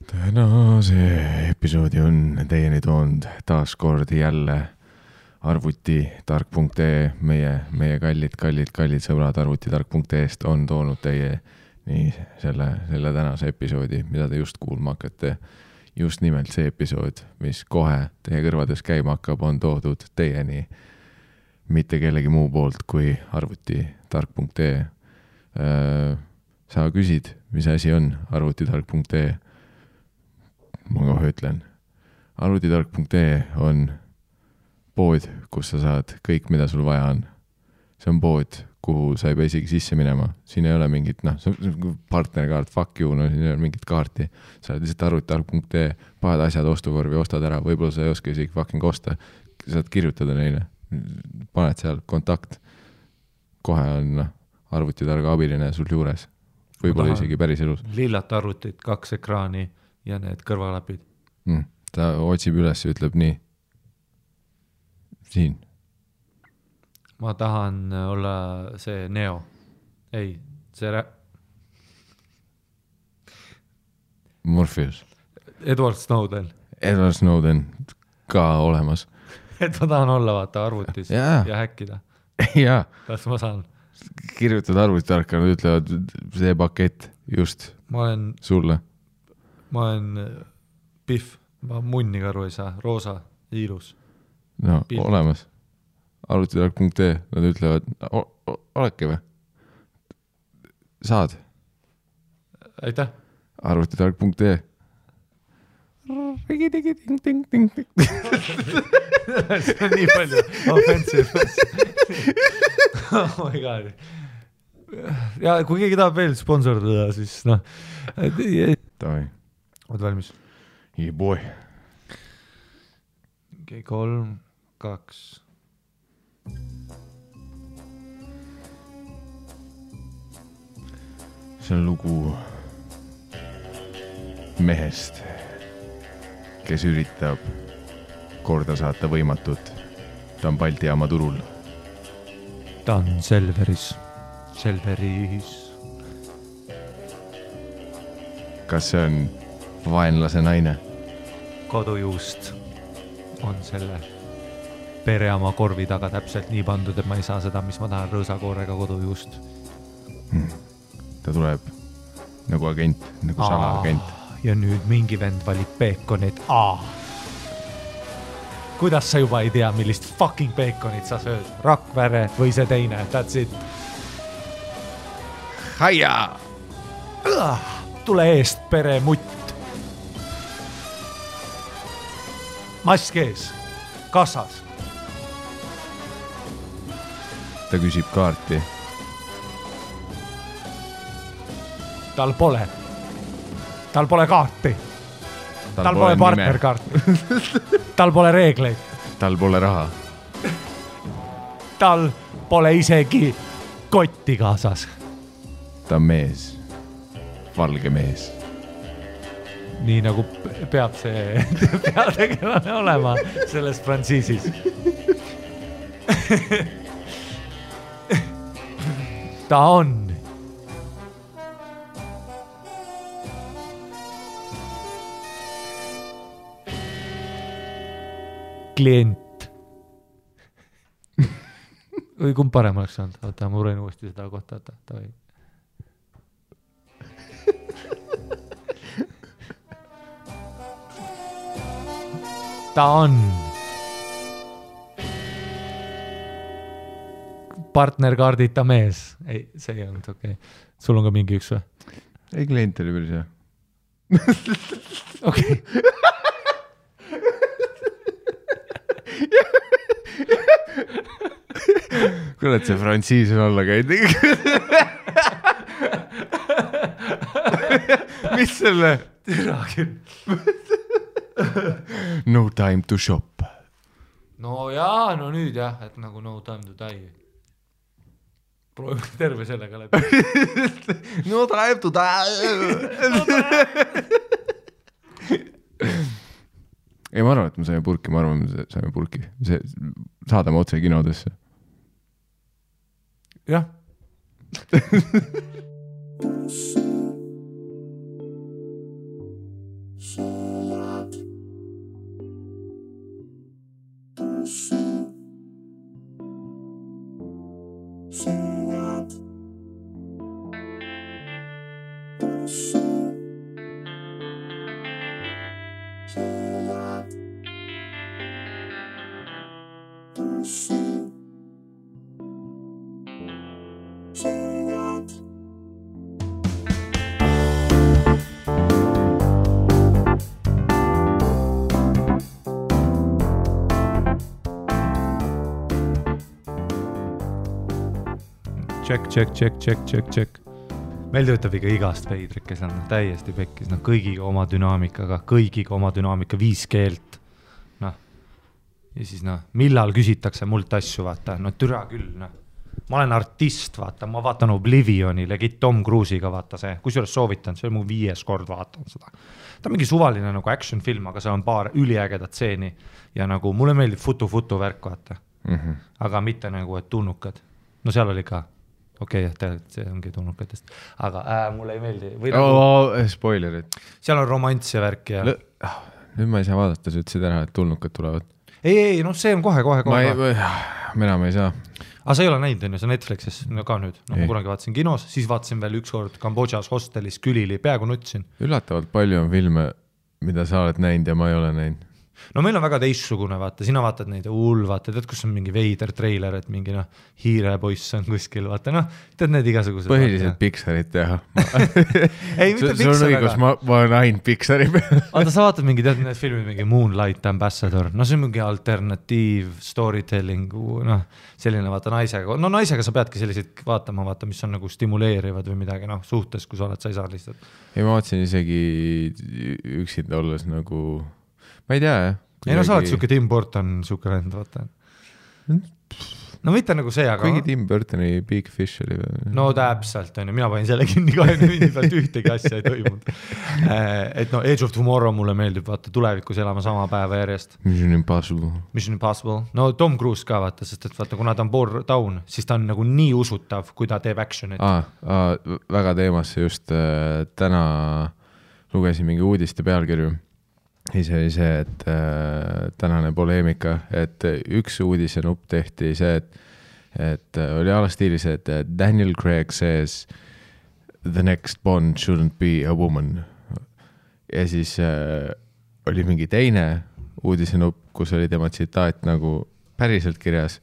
tänase episoodi on teieni toonud taas kord jälle arvutitark.ee, meie kallid sõbrad arvutitark.ee-st on toonud teie nii selle tänase episoodi, mida te just kuulma hakkate. Just nimelt see episood, mis kohe teie kõrvades käima hakkab, on toodud teieni mitte kellegi muu poolt kui arvutitark.ee. Sa küsid, mis asi on arvutitark.ee? Ma kohe ütlen. Arvutitark.ee on pood, kus sa saad kõik, mida sul vaja on. See on pood, kuhu sa ei pea isegi sisse minema. Siin ei ole mingit, partnerkaart, fuck you, siin ei ole mingit kaarti. Sa oled lihtsalt arvutitark.ee, paned asjad ostukorvi, ostad ära, võib-olla sa ei oska isegi fucking osta. Saad kirjutada neile, paned seal kontakt. Kohe on arvutitarga abiline sul juures. Võib-olla isegi päris elus. Lillat arvutit, 2 ekraani ja need kõrvalapid. Ta otsib üles ja ütleb nii. Siin. Ma tahan olla see Neo. Ei, see Morpheus. Edward Snowden. Edward Snowden ka olemas. Et ma tahan olla vaata arvutis ja häkkida. Jaa. Kas ma saan? Kirjutad arvutitarka, nad ütlevad see pakett just sulle. Ma olen Pihv, ma munniga aru ei saa, roosa, ilus. No, Pilv. Olemas. Arvutitark.ee, nad ütlevad, oleke või? Saad? Aitäh. Arvutitark.ee. See on nii palju offensive. Oh my god. Ja kui keegi tahab veel sponsordada, siis Davai. Oled valmis? Yeah, boy. Okay, 3, 2. See on lugu mehest, kes üritab korda saata võimatut. Ta on Balti jaama turul. Ta on Selveris. Kas see on vaenlase naine? Kodujuust on selle pereama korvi taga täpselt nii pandud, et ma ei saa seda, mis ma tahan, rõõsakoorega kodujuust. Ta tuleb nagu agent, nagu salaagent. Ja nüüd mingi vend valib peekonit. Kuidas sa juba ei tea, millist fucking peekonit sa sööd? Rakvere või see teine? That's it. Haia! Tule eest, pere mutt. Mask ees. Kassas. Ta küsib kaarti. Tal pole kaarti. Tal pole partnerkaarti. Tal pole reegleid. Tal pole raha. Tal pole isegi kotti kaasas. Ta on mees. Valge mees. Nii nagu peab see peategelane olema selles frantsiisis. Ta on klient. Või kumb parem oleks saanud? Oota, ma uren uuesti seda kohta. Ta on partnerkaardita mees. Ei, see ei olnud okei. Sul on ka mingi üks või? Ei, klient oli päris hea. Okei. Kuule, see frantsiis on alla käinud. Mis selle? No time to shop. No jaa, no nüüd jah, et nagu no time to die. Proovime terve sellega läbi. No time to die. Ei, ma arvan, et me saime purki, ma arvan, et saime purki. Saadame otse kinodesse. Jah. Check. Meil töötab ikka igast veidrik, kes on täiesti pekkis, kõigiga oma dünaamikaga, 5 keelt. Ja siis millal küsitakse mult asju, vaata, türa küll, Ma olen artist, vaata, ma vaatan Oblivioni, legit Tom Cruise'iga, vaata see, kusjuures soovitan, see on mu 5. kord vaatan seda. Ta on mingi suvaline action film, aga seal on paar üliägedat tseeni ja mulle meeldib futu värk, vaata. Aga mitte et tulnukad. No seal oli ka. Okei, see ongi tulnukatest. Aga mulle ei meeldi. Spoilerid. Seal on romants ja värk ja... Nüüd ma ei saa vaadata, sa ütlesid ära, et tulnukad tulevad. Ei, see on kohe. Mina ma ei saa. Aga sa ei ole näinud, see Netflixis ka nüüd. Ma kunagi vaatasin kinos, siis vaatasin veel üks kord Kambodžas hostelis Külili, peaaegu nutsin. Üllatavalt palju on filme, mida sa oled näinud ja ma ei ole näinud. No meil on väga teistsugune, vaata, sina vaatad neid vaata, tead, kus on mingi veider treiler, et mingi hiirepoiss on kuskil, vaata, tead need igasugused. Põhiliselt Pixarit teha. Ei, mitte Pixar, sul on õigus, ma olen ainult Pixari peal. Vaata, sa vaatad mingi, tead need filmid, mingi Moonlight Ambassador, see on mingi alternatiiv storytelling, selline vaata naisega, naisega sa peadki selliseid vaatama, vaata, mis on stimuleerivad või midagi, suhtes, kui sa oled, sa ei saa lihtsalt. Ei, ma vaatasin isegi üksinda olles ma ei tea, jah. Ei, sa oled siuke Tim Burton, siuke vend, vaata. No mitte see, aga... Kuigi Tim Burtoni Big Fish oli või? No täpselt, mina panin selle kinni 20 minuti pealt ühtegi asja ei toimunud. Et Age of Tomorrow mulle meeldib, vaata, tulevikus elama sama päeva järjest. Mission Impossible. No Tom Cruise ka, vaata, sest et vaata, kuna ta on pool down, siis ta on nii usutav, kui ta teeb actionit. Väga teemasse just täna lugesin mingi uudiste pealkirju. Ise oli see, et tänane poleemika, et üks uudise nupp tehti see, et oli alastiilis, et Daniel Craig says the next Bond shouldn't be a woman. Ja siis oli mingi teine uudise nupp, kus oli tema tsitaat päriselt kirjas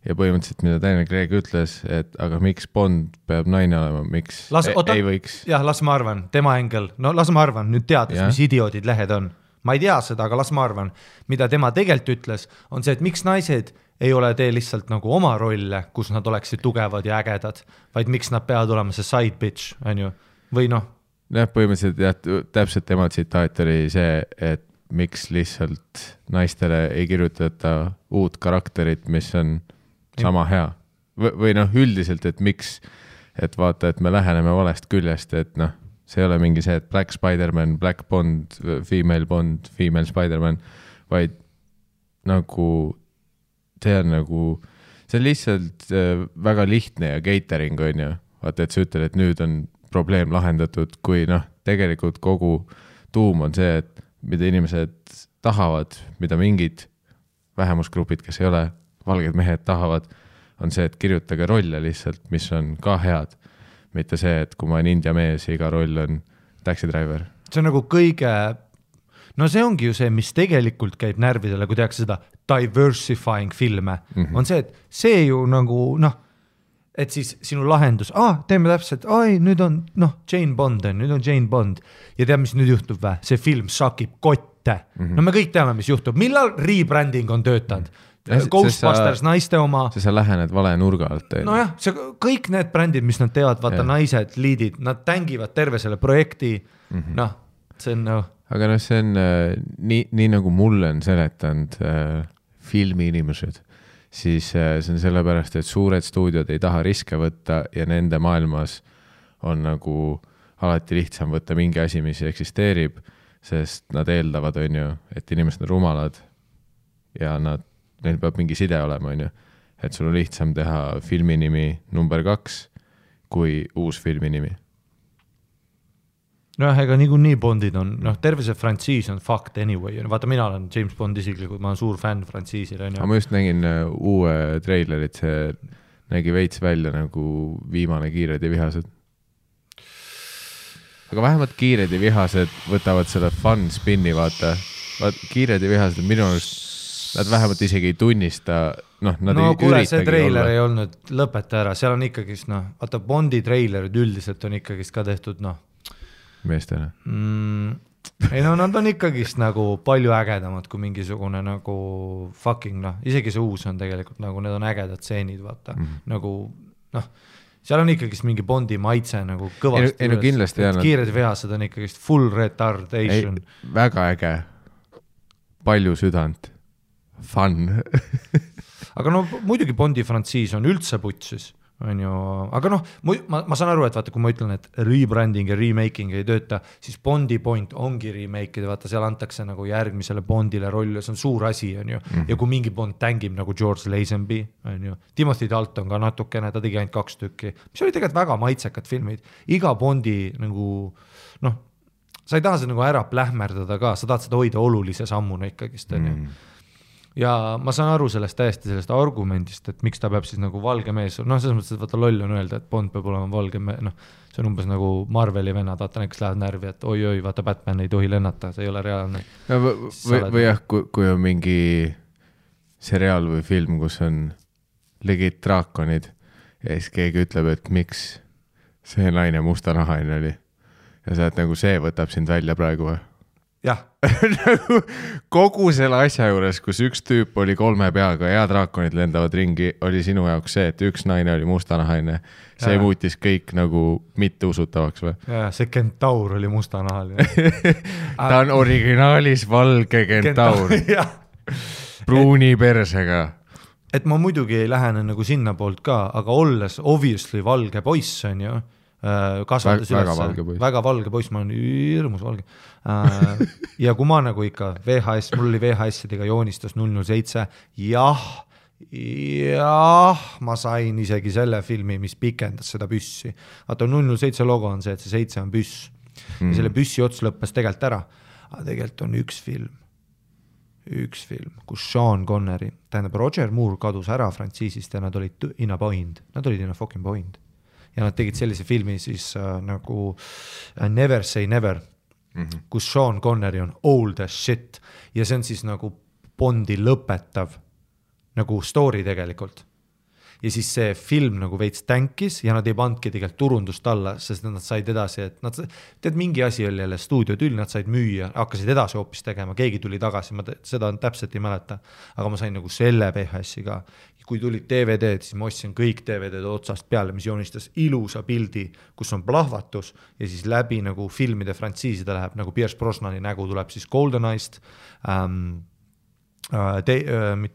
ja põhimõtteliselt, mida Daniel Craig ütles, et aga miks Bond peab naine olema, miks ei võiks? Jah, las ma arvan, tema engel, las ma arvan, nüüd teades, mis idioodid lehed on. Ma ei tea seda, aga las ma arvan, mida tema tegelikult ütles, on see, et miks naised ei ole tee lihtsalt oma rolle, kus nad oleksid tugevad ja ägedad, vaid miks nad peavad olema see side bitch, on ju, või Jah, põhimõtteliselt täpselt tema tsitaat oli see, et miks lihtsalt naistele ei kirjutata uut karakterit, mis on sama hea. Või üldiselt, et miks, et vaata, et me läheneme valest küljest, et see ei ole mingi see, et Black Spider-Man, Black Bond, Female Spider-Man, vaid see on lihtsalt väga lihtne ja catering on ju. Vaata, et sa ütled, et nüüd on probleem lahendatud, kui tegelikult kogu tuum on see, et mida inimesed tahavad, mida mingid vähemusgrupid, kes ei ole valged mehed tahavad, on see, et kirjutage rolle lihtsalt, mis on ka head. Mitte see, et kui ma olen India mees ja iga roll on taxi driver. See on kõige... see ongi ju see, mis tegelikult käib närvidele, kui tehakse seda diversifying filme. On see, et see ju et siis sinu lahendus, teeme täpselt, nüüd on Jane Bond, nüüd on Jane Bond. Ja tead, mis nüüd juhtub vä? See film sakib kotte. Me kõik teame, mis juhtub. Millal rebranding on töötanud? Ghostbusters, naiste oma. Sa lähened vale nurga alt. Nojah, kõik need brändid, mis nad teevad, vaata naised, liidid, nad tängivad terve selle projekti. See on... Aga see on nii nagu mulle on seletanud filmi inimesed, siis see on sellepärast, et suured stuudiod ei taha riske võtta ja nende maailmas on alati lihtsam võtta mingi asi, mis eksisteerib, sest nad eeldavad, on ju, et inimesed on rumalad ja neil peab mingi side olema, on ju. Et sul on lihtsam teha filminimi number 2 kui uus filminimi. noh, ega nii Bondid on, noh, terve see frantsiis on fucked anyway, vaata mina olen James Bond isiklikult, ma olen suur fänn frantsiisil. Aga ma just nägin uue treilerit, see nägi veits välja nagu viimane Kiired ja vihased. Aga vähemalt Kiired ja vihased võtavad selle fun spinni, vaata Kiired ja vihased minu arust, nad vähemalt isegi ei tunnista, noh, nad ei kuule, üritagi see treiler olla. ei olnud, lõpeta ära, seal on ikkagist, noh, vaata Bondi treilerid üldiselt on ikkagist ka tehtud, noh, meestele. Ei no nad on ikkagist nagu palju ägedamad kui mingisugune nagu fucking, noh, isegi see uus on tegelikult nagu, need on ägedad stseenid, vaata, nagu, noh, seal on ikkagist mingi Bondi maitse nagu kõvasti. Ei no kindlasti jah. Kiired vihased on ikkagist full retardation. Väga äge. Palju südant. Fun. Aga no muidugi Bondi frantsiis on üldse putsis. On ju, aga noh, ma saan aru, et vaata, kui ma ütlen, et rebranding ja remaking ei tööta, siis Bondi point ongi remake, vaata, seal antakse nagu järgmisele Bondile rolli, see on suur asi, on ju, ja kui mingi Bond tängib nagu George Lazenby, on ju, Timothy Dalton ka natukene, ta tegi ainult 2 tükki, mis oli tegelikult väga maitsekad filmid, iga Bondi nagu, noh, sa ei taha seda nagu ära plähmerdada ka, sa tahad seda hoida olulise sammuna ikkagist, on ju. Ja ma saan aru sellest täiesti sellest argumendist, et miks ta peab siis nagu valge mees, noh, selles mõttes, et vaata loll on öelda, et Bond peab olema valge mees, noh, see on umbes nagu Marveli venad, vaata näiteks lähevad närvi, et oi, vaata Batman ei tohi lennata, see ei ole reaalne. No, või jah, kui on mingi seriaal või film, kus on legit draakonid ja siis keegi ütleb, et miks see naine mustanahaline oli ja sa et nagu see võtab sind välja praegu või? Jah. Kogu selle asja juures, kus üks tüüp oli 3 peaga ja draakonid lendavad ringi, oli sinu jaoks see, et üks naine oli mustanahaline. See muutis kõik nagu mitte usutavaks või? Ja, see kentaur oli mustanahaline. Ta on originaalis valge kentaur. Pruuni persega. Et ma muidugi ei lähene nagu sinna poolt ka, aga olles obviously valge poiss on ju, kasvatas väga valge poiss, ma olen hirmus valge. Ja kui ma nagu ikka VHS, mul oli VHS-idega joonistus 007, jah, ma sain isegi selle filmi, mis pikendas seda püssi. Vaata 007 logo on see, et see 7 on püss. Ja selle püssi ots lõppes tegelikult ära. Aga tegelikult on üks film, kus Sean Connery, tähendab Roger Moore kadus ära frantsiisist ja nad olid in a point. Nad olid in a fucking point. Ja nad tegid sellise filmi siis nagu Never Say Never, kus Sean Connery on old as shit ja see on siis nagu Bondi lõpetav nagu story tegelikult. Ja siis see film nagu veits tänkis ja nad ei pandki tegelikult turundust alla, sest nad said edasi, et nad, tead mingi asi oli jälle stuudiotüll, nad said müüa, hakkasid edasi hoopis tegema, keegi tuli tagasi, ma seda täpselt ei mäleta, aga ma sain nagu selle VHS-i ka. Kui tulid DVD-d, siis ma ostsin kõik DVD-d otsast peale, mis joonistas ilusa pildi, kus on plahvatus ja siis läbi nagu filmide frantsiiside läheb, nagu Pierce Brosnani nägu tuleb siis GoldenEyest, Diana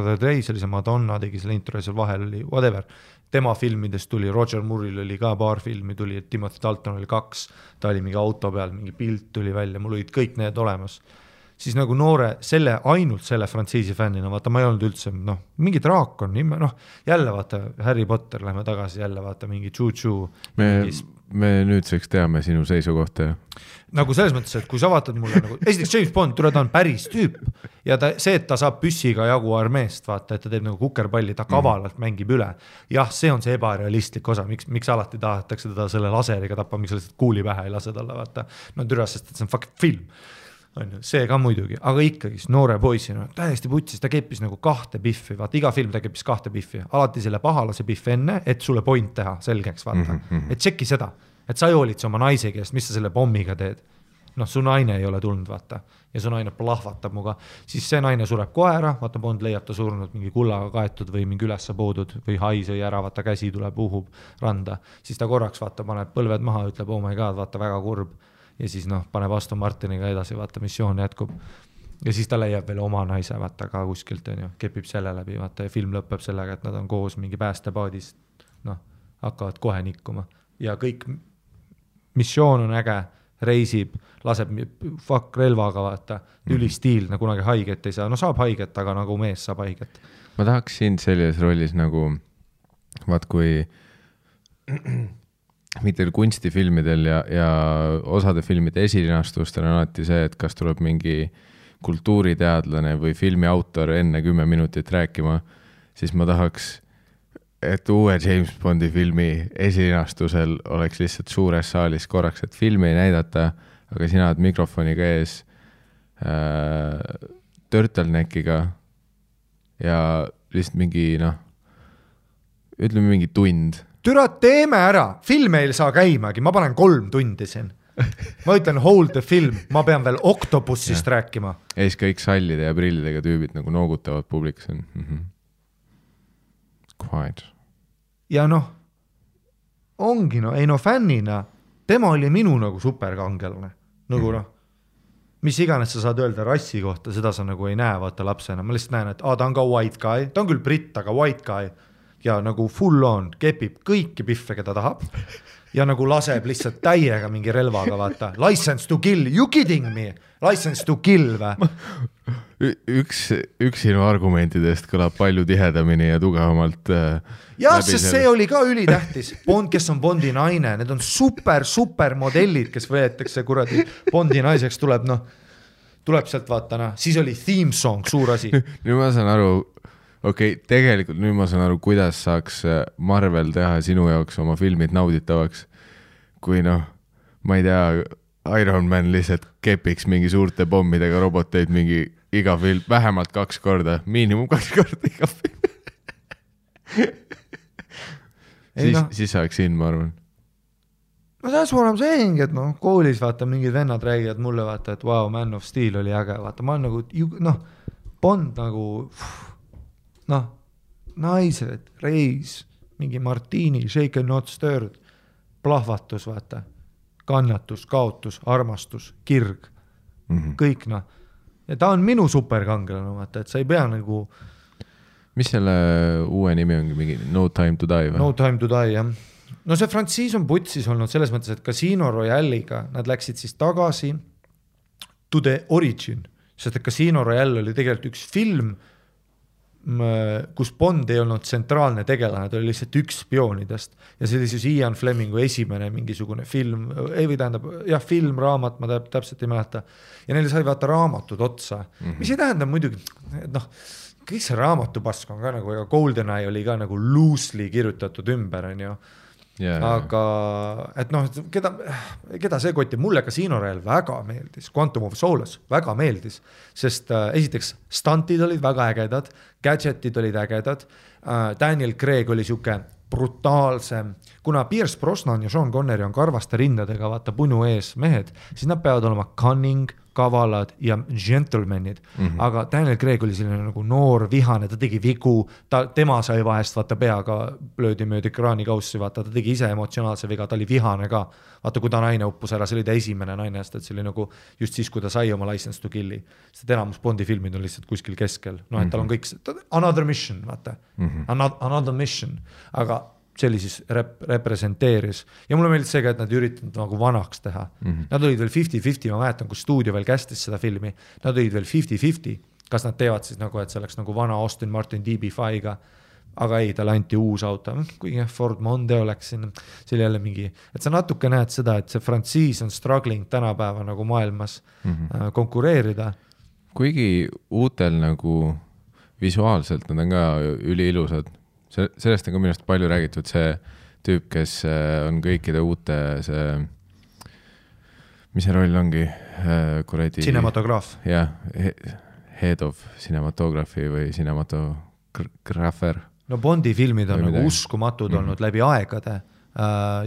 the Day, see oli see Madonna, tegi selle intro ja seal vahel oli whatever. Tema filmidest tuli, Roger Moore'il oli ka paar filmi, tuli, Timothy Dalton oli 2, ta oli mingi auto peal, mingi pilt tuli välja, mul olid kõik need olemas. Siis nagu noore, ainult selle frantsiisi fännina, vaata ma ei olnud üldse, noh, mingi draakon, noh, jälle vaata Harry Potter, lähme tagasi jälle vaata mingi Choo-Choo. Me nüüdseks teame sinu seisukohta. Nagu selles mõttes, et kui sa vaatad mulle nagu, esiteks James Bond, ta on päris tüüp ja see, et ta saab püssiga jagu armeest, vaata, et ta teeb nagu kukerpalli, ta kavalalt mängib üle. Jah, see on see ebarealistlik osa, miks alati tahetakse teda selle laseriga tappa, miks lihtsalt kuuli pähe ei lase talle, vaata. No türa, sest see on fucking film. See ka muidugi, aga ikkagi noore poisina täiesti putsis, ta keppis nagu 2 biffi, vaata iga film ta keppis 2 biffi, alati selle pahalase biff enne, et sulle point teha selgeks, vaata, et tšeki seda, et sa ei hoolitse oma naise käest, mis sa selle pommiga teed, noh, su naine ei ole tulnud, vaata, ja su naine plahvatab muga, siis see naine sureb kohe ära, vaata Bond leiab ta surnud mingi kullaga kaetud või mingi ülesse poodud või hai sõi ära, vaata käsi tuleb, uhub randa, siis ta korraks vaata, paneb põlved maha, ütleb, oh my god, vaata väga kurb. Ja siis noh, paneb Aston Martiniga edasi, vaata missioon jätkub. Ja siis ta leiab veel oma naise, vaata ka kuskilt, kepib selle läbi, vaata ja film lõpeb sellega, et nad on koos mingi päästepaadis, noh, hakkavad kohe nikkuma. Ja kõik missioon on äge, reisib, laseb fuck relvaga, vaata, ülistiilne, kunagi haiget ei saa. No saab haiget, aga nagu mees saab haiget. Ma tahaks sind selles rollis nagu, vaat kui mitte kunstifilmidel ja osade filmide esilinastustel on alati see, et kas tuleb mingi kultuuriteadlane või filmi autor enne 10 minutit rääkima, siis ma tahaks, et uue James Bondi filmi esilinastusel oleks lihtsalt suures saalis korraks, et filmi ei näidata, aga sina oled mikrofoniga ees turtleneckiga ja lihtsalt mingi, ütleme mingi tund. Türa, teeme ära, film ei saa käimagi, ma panen 3 tundi siin. Ma ütlen hold the film, ma pean veel Octopussist rääkima. Ees kõik sallide ja prillidega tüübid nagu noogutavad publikus. Quiet. Ja ongi fännina, tema oli minu nagu superkangelane. Nagu mis iganes sa saad öelda rassi kohta, seda sa nagu ei näe vaata lapsena. Ma lihtsalt näen, et ta on ka white guy, ta on küll britt, aga white guy. Ja nagu full on, kepib kõiki piffe, keda tahab. Ja nagu laseb lihtsalt täiega mingi relvaga, vaata. License to kill, you kidding me? License to kill või? Üks sinu argumentidest kõlab palju tihedamini ja tugevamalt. Jah, sest see oli ka ülitähtis. Bond, kes on Bondi naine, need on super modellid, kes võetakse kuradi Bondi naiseks tuleb sealt vaata, siis oli theme song, suur asi. Nüüd ma saan aru, tegelikult nüüd ma saan aru, kuidas saaks Marvel teha sinu jaoks oma filmid nauditavaks, kui ma ei tea, Iron Man lihtsalt kepiks mingi suurte pommidega roboteid mingi iga film, vähemalt 2 korda, miinimum 2 korda iga film. Siis saaks siin, ma arvan. No that's what I'm saying, et koolis vaata mingid vennad räägivad mulle vaata, et wow, Man of Steel oli äge, vaata, ma olen nagu, Bond nagu, naised, reis, mingi martini, shaken not stirred, plahvatus, vaata, kannatus, kaotus, armastus, kirg, kõik ja ta on minu superkangelane, vaata, et sa ei pea nagu. Mis selle uue nimi ongi, mingi No Time to Die või? No Time to Die, jah. No see frantsiis on putsis olnud selles mõttes, et Casino Royale'iga nad läksid siis tagasi to the origin, sest et Casino Royale oli tegelikult üks film, kus Bond ei olnud tsentraalne tegelane, ta oli lihtsalt üks spioonidest ja see oli siis Ian Flemingu esimene mingisugune film, film, raamat, ma täpselt ei mäleta ja neile sai vaata raamatud otsa, mis ei tähenda muidugi, kõik see raamatupask on ka nagu, ega GoldenEye oli ka nagu loosely kirjutatud ümber, on ju. Aga et keda see kotti, mulle Casino Royale väga meeldis, Quantum of Solace väga meeldis, sest esiteks stantid olid väga ägedad, gadgetid olid ägedad, Daniel Craig oli siuke brutaalsem, kuna Pierce Brosnan ja Sean Connery on karvaste rindadega vaata punu ees mehed, siis nad peavad olema cunning, kavalad ja gentlemanid, aga Daniel Craig oli selline nagu noor, vihane, ta tegi vigu, tema sai vahest vaata peaga löödi möödi kraanikaussi, vaata, ta tegi ise emotsionaalse viga, ta oli vihane ka, vaata kui ta naine uppus ära, see oli ta esimene naine, sest see oli nagu just siis, kui ta sai oma license to killi, sest enamus Bondi filmid on lihtsalt kuskil keskel, et tal on kõik, another mission, vaata, another mission, aga see oli siis representeeris ja mulle meeldis see ka, et nad üritanud nagu vanaks teha. Nad olid veel 50-50, ma mäletan, kui stuudio veel kästis seda filmi, nad olid veel 50-50, kas nad teevad siis nagu, et see oleks nagu vana Austin Martin DB5-ga, aga ei, talle anti uus auto, kuigi Ford Mondeo läks siin, see oli jälle mingi, et sa natuke näed seda, et see frantsiis on struggling tänapäeva nagu maailmas konkureerida. Kuigi uutel nagu visuaalselt nad on ka üliilusad, sellest on ka minust palju räägitud see tüüp, kes on kõikide uute see, mis see roll ongi? Cinematograaf. Jah, head of cinematography või cinematographer. No Bondi filmid on nagu uskumatud olnud läbi aegade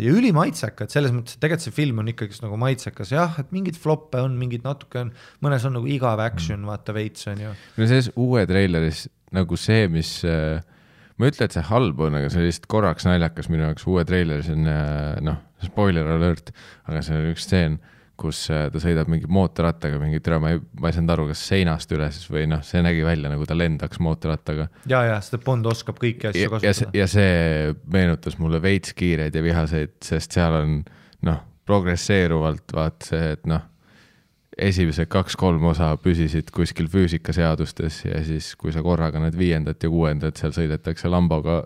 ja ülimaitsekad, selles mõttes, et tegelikult see film on ikkagi nagu maitsekas, jah, et mingid floppe on, mingid natuke on, mõnes on nagu igav action, vaata veits on ju. No selles uue traileris nagu see, mis ma ütlen, et see halb on, aga see oli lihtsalt korraks naljakas minu jaoks uue traileris on, spoiler alert, aga see on üks stseen, kus ta sõidab mingi mootorrattaga, mingi türa, ma ei saanud aru, kas seinast üles või see nägi välja, nagu ta lendaks mootorrattaga. Ja, seda Bond oskab kõiki asju kasutada. Ja see meenutas mulle veits kiireid ja vihaseid, sest seal on, progresseeruvalt vaat see, et esimesed 2-3 osa püsisid kuskil füüsikaseadustes ja siis, kui sa korraga need 5. ja 6. seal sõidetakse lamboga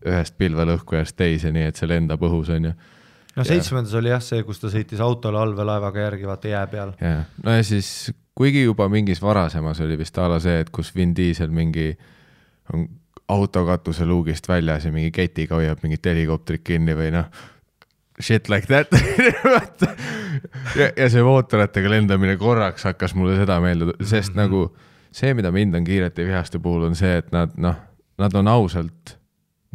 ühest pilvelõhkujast teise, nii et see lendab õhus on ju. no 7. oli jah see, kus ta sõitis autole allveelaevaga järgi, vaata jää peal. Ja. No ja siis, kuigi juba mingis varasemas oli vist ala see, et kus Vin Diesel mingi autokatuse luugist väljas ja mingi ketiga hoiab mingit helikopterit kinni või noh, shit like that. ja see mootoratega lendamine korraks hakkas mulle seda meelde, sest nagu see, mida mind on Kiirete vihaste puhul, on see, et nad on ausalt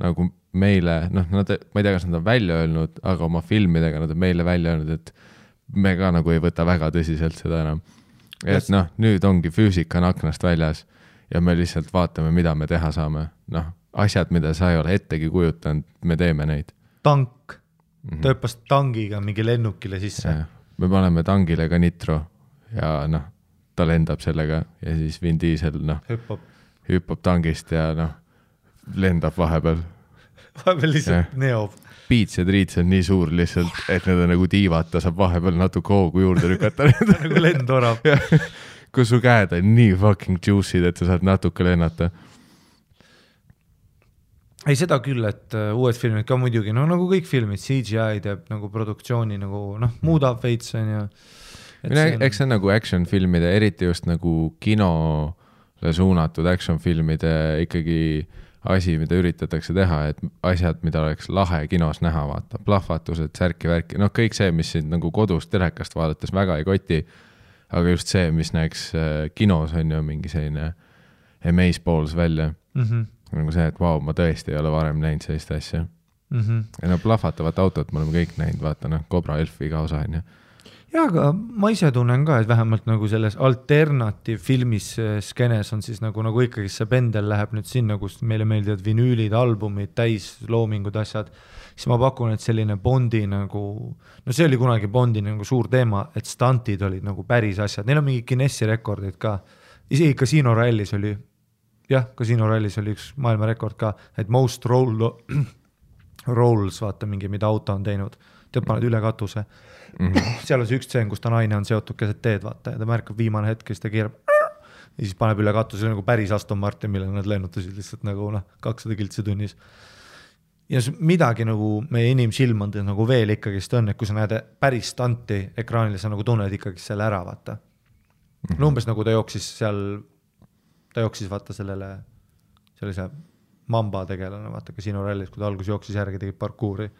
nagu meile, noh, ma ei tea, kas nad on välja öelnud, aga oma filmidega nad on meile välja öelnud, et me ka nagu ei võta väga tõsiselt seda enam. Et noh, nüüd ongi füüsika on aknast väljas ja me lihtsalt vaatame, mida me teha saame. Noh, asjad, mida sa ei ole ettegi kujutanud, me teeme neid. Tank. Ta hüppas tangiga mingi lennukile sisse. Ja, me paneme tangile ka nitro ja noh, ta lendab sellega ja siis Vin Diesel hüppab tangist ja noh, lendab vahepeal. Vahepeal lihtsalt neob. Piits ja triits on nii suur lihtsalt, et need on nagu tiivad, ta saab vahepeal natuke hoogu juurde rükata. nagu lendorab. Kus su käed on nii fucking juicy'd, et sa saad natuke lennata. Ei, seda küll, et uued filmid ka muidugi, no nagu kõik filmid, CGI teeb nagu produktsiooni nagu, noh, muudab veits on ja... Eks see on nagu action filmide, eriti just nagu kinole suunatud action filmide ikkagi asi, mida üritatakse teha, et asjad, mida oleks lahe kinos näha, vaata, plahvatused, särki-värki, noh, kõik see, mis siin nagu kodus telekast vaadates väga ei koti, aga just see, mis näeks kinos on ju mingi selline amazeballs välja. Nagu see, et vau, ma tõesti ei ole varem näinud sellist asja. Ja no plahvatavat autot me oleme kõik näinud, vaata, noh, Cobra Elfi ka osa on ju. Ja, aga ma ise tunnen ka, et vähemalt nagu selles alternatiivfilmis skenes on siis nagu ikkagi see pendel läheb nüüd sinna, kus meile meeldivad vinüülid, albumid, täisloomingud, asjad, siis ma pakun, et selline Bondi nagu, no see oli kunagi Bondi nagu suur teema, et stantid olid nagu päris asjad, neil on mingi Guinessi rekordid ka, isegi Casino Rallis oli, jah, Casino Rallis oli üks maailmarekord ka, et most rolls, vaata mingi, mida auto on teinud, tead paned üle katuse. Seal on see üks tseen, kus ta naine on seotud keset teed, vaata, ja ta märkab viimane hetk, siis ta keerab ja siis paneb üle katuse, nagu päris Aston Martin, mille nad lennutasid lihtsalt nagu 200 kiltsi tunnis. Ja midagi nagu meie inimsilmand nagu veel ikkagist on, et kui sa näed päris stanti ekraanile, sa nagu tunned ikkagist selle ära, vaata. No umbes nagu ta jooksis vaata sellise mamba tegelane, vaata Casino Rallis, kui ta algus jooksis järgi, tegid parkuuri.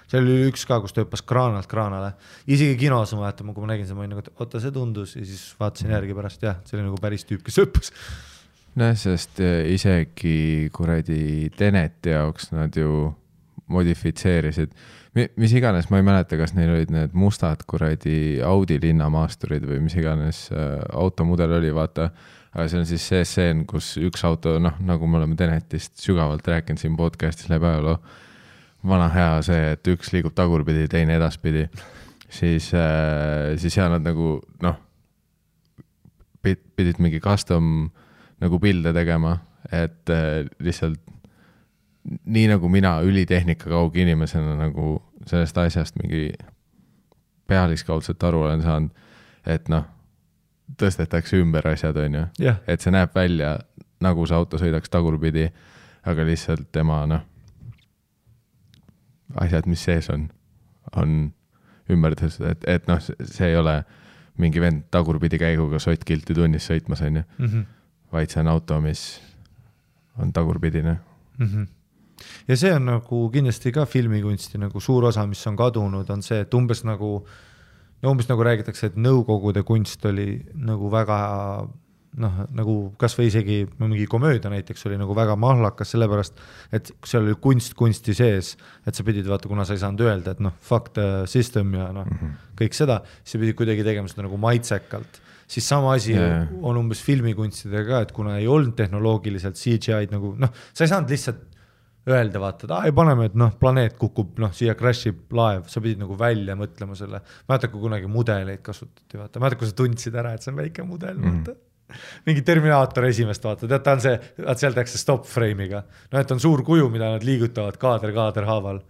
See oli üks ka, kus ta hüppas kraanalt kraanale. Isegi kinos ma vaatama, kui ma nägin see, ma olin nagu, et oota, see tundus ja siis vaatasin järgi pärast, jah, see oli nagu päris tüüp, kes hüppas. No, sest isegi kuradi Teneti jaoks nad ju modifitseerisid. Mis iganes, ma ei mäleta, kas neil olid need mustad kuradi Audi linnamaasturid või mis iganes automudel oli, vaata. Aga see on siis see seen, kus üks auto, noh, nagu me oleme Tenetist sügavalt rääkinud siin podcastis läbi ajaloo, vana hea see, et üks liigub tagurpidi, teine edaspidi, siis seal nad nagu, noh, pidid mingi custom nagu pilde tegema, et lihtsalt nii nagu mina ülitehnika kaugi inimesena nagu sellest asjast mingi pealiskaudselt aru olen saanud, et noh, tõstetakse ümber asjad, on ju. Yeah. Et see näeb välja, nagu see auto sõidaks tagurpidi, aga lihtsalt tema, noh, asjad, mis sees on ümber tõstud, et noh, see ei ole mingi vend tagurpidi käiguga sottkilti tunnis sõitmas, on ju. Vaid see on auto, mis on tagurpidine. Ja see on nagu kindlasti ka filmikunsti nagu suur osa, mis on kadunud, on see, et umbes nagu räägitakse, et nõukogude kunst oli nagu väga, noh, nagu kas või isegi mingi komöödia näiteks oli nagu väga mahlakas, sellepärast, et seal oli kunsti sees, et sa pidid vaata, kuna sa ei saanud öelda, et noh, fuck the system ja noh, kõik seda, siis sa pidid kuidagi tegema seda nagu maitsekalt. Siis sama asi on umbes filmikunstidega, et kuna ei olnud tehnoloogiliselt CGI-d nagu, noh, sa ei saanud lihtsalt öelda, vaata, et paneme, et noh, planeet kukub, noh, siia crashib laev, sa pidid nagu välja mõtlema selle. Mäletad, kui kunagi mudeleid kasutati, vaata, mäletad, kui sa tundsid ära, et see on väike mudel, vaata. Mingi Terminaator esimest vaata, tead, ta on see, et seal tehakse stop frame'iga. No, et on suur kuju, mida nad liigutavad kaader haaval.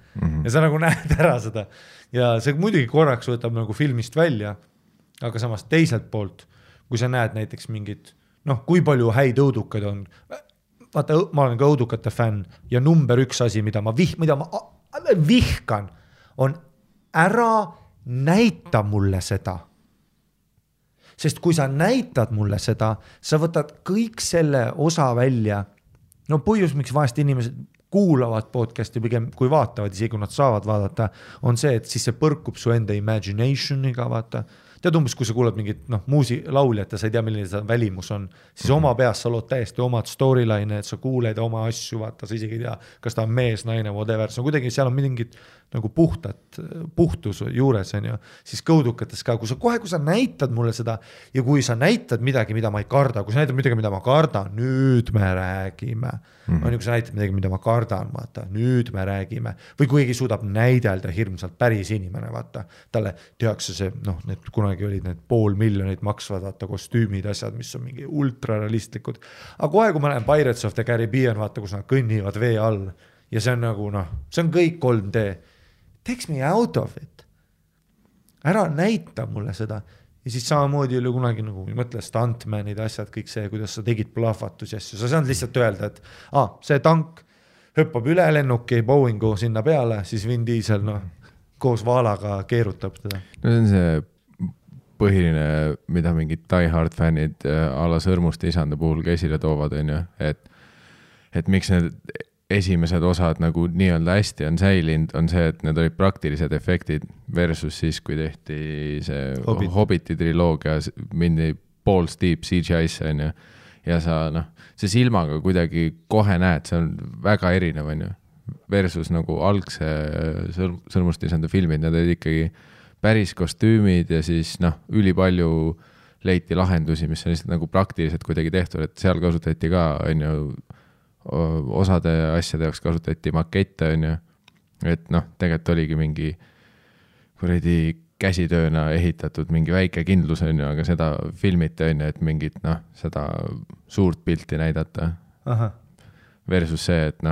Ja sa nagu näed ära seda. Ja see muidugi korraks võtab nagu filmist välja, aga samas teiselt poolt, kui sa näed näiteks mingid, noh, kui palju häid õudukad on, vaata, ma olen ka õudukate fänn ja number üks asi, mida ma vihkan, on ära näita mulle seda. Sest kui sa näitad mulle seda, sa võtad kõik selle osa välja. No põhjus, miks vahest inimesed kuulavad podcasti pigem kui vaatavad, isegi kui nad saavad vaadata, on see, et siis see põrkub su enda imaginationiga, vaata. Tead umbes, kui sa kuulad mingit lauljat ja sa ei tea, milline see välimus on, siis oma peas sa lood täiesti omad storyline, et sa kuuled oma asju, vaata, sa isegi ei tea, kas ta on mees, naine, whatever, see on kuidagi, seal on mingid nagu puhtus juures, on ju, siis kõudukates ka, kui sa näitad mulle seda ja kui sa näitad midagi, mida ma ei karda, kui sa näitad midagi, mida ma kardan, nüüd me räägime. On ju, kui sa näitad midagi, mida ma kardan, vaata, nüüd me räägime. Või kui keegi suudab näidelda hirmsalt päris inimene, vaata, talle tehakse see, need kunagi olid need 500 000 maksvad, vaata, kostüümid, asjad, mis on mingi ultrarealistlikud. Aga kohe, kui ma näen Pirates of the Caribbean, vaata, kus nad kõnnivad vee all ja see on nagu, see on kõik 3D. Takes me out of it. Ära näita mulle seda. Ja siis samamoodi oli kunagi nagu, mõtle stuntmanid, asjad, kõik see, kuidas sa tegid plahvatusi asju. Sa saad lihtsalt öelda, et see tank hüppab üle lennuki Boeingu sinna peale, siis Vin Diesel koos vaalaga keerutab teda. No see on see põhiline, mida mingid Die Hard fännid ala Sõrmuste isanda puhul käsile toovad, on ju, et miks need esimesed osad nagu nii-öelda hästi on säilinud, on see, et need olid praktilised efektid versus siis, kui tehti see Hobbiti triloogia, mindi balls deep CGI-sse, on ju, ja sa, see silmaga kuidagi kohe näed, see on väga erinev, on ju, versus nagu algse Sõrmuste isanda filmid, need olid ikkagi päris kostüümid ja siis ülipalju leiti lahendusi, mis on lihtsalt nagu praktiliselt kuidagi tehtud, et seal kasutati ka, on ju, osade asjade jaoks kasutati makette, on ju, et tegelikult oligi mingi kuradi käsitööna ehitatud mingi väike kindlus, on ju, aga seda filmiti, on ju, et mingit seda suurt pilti näidata. Aha. Versus see, et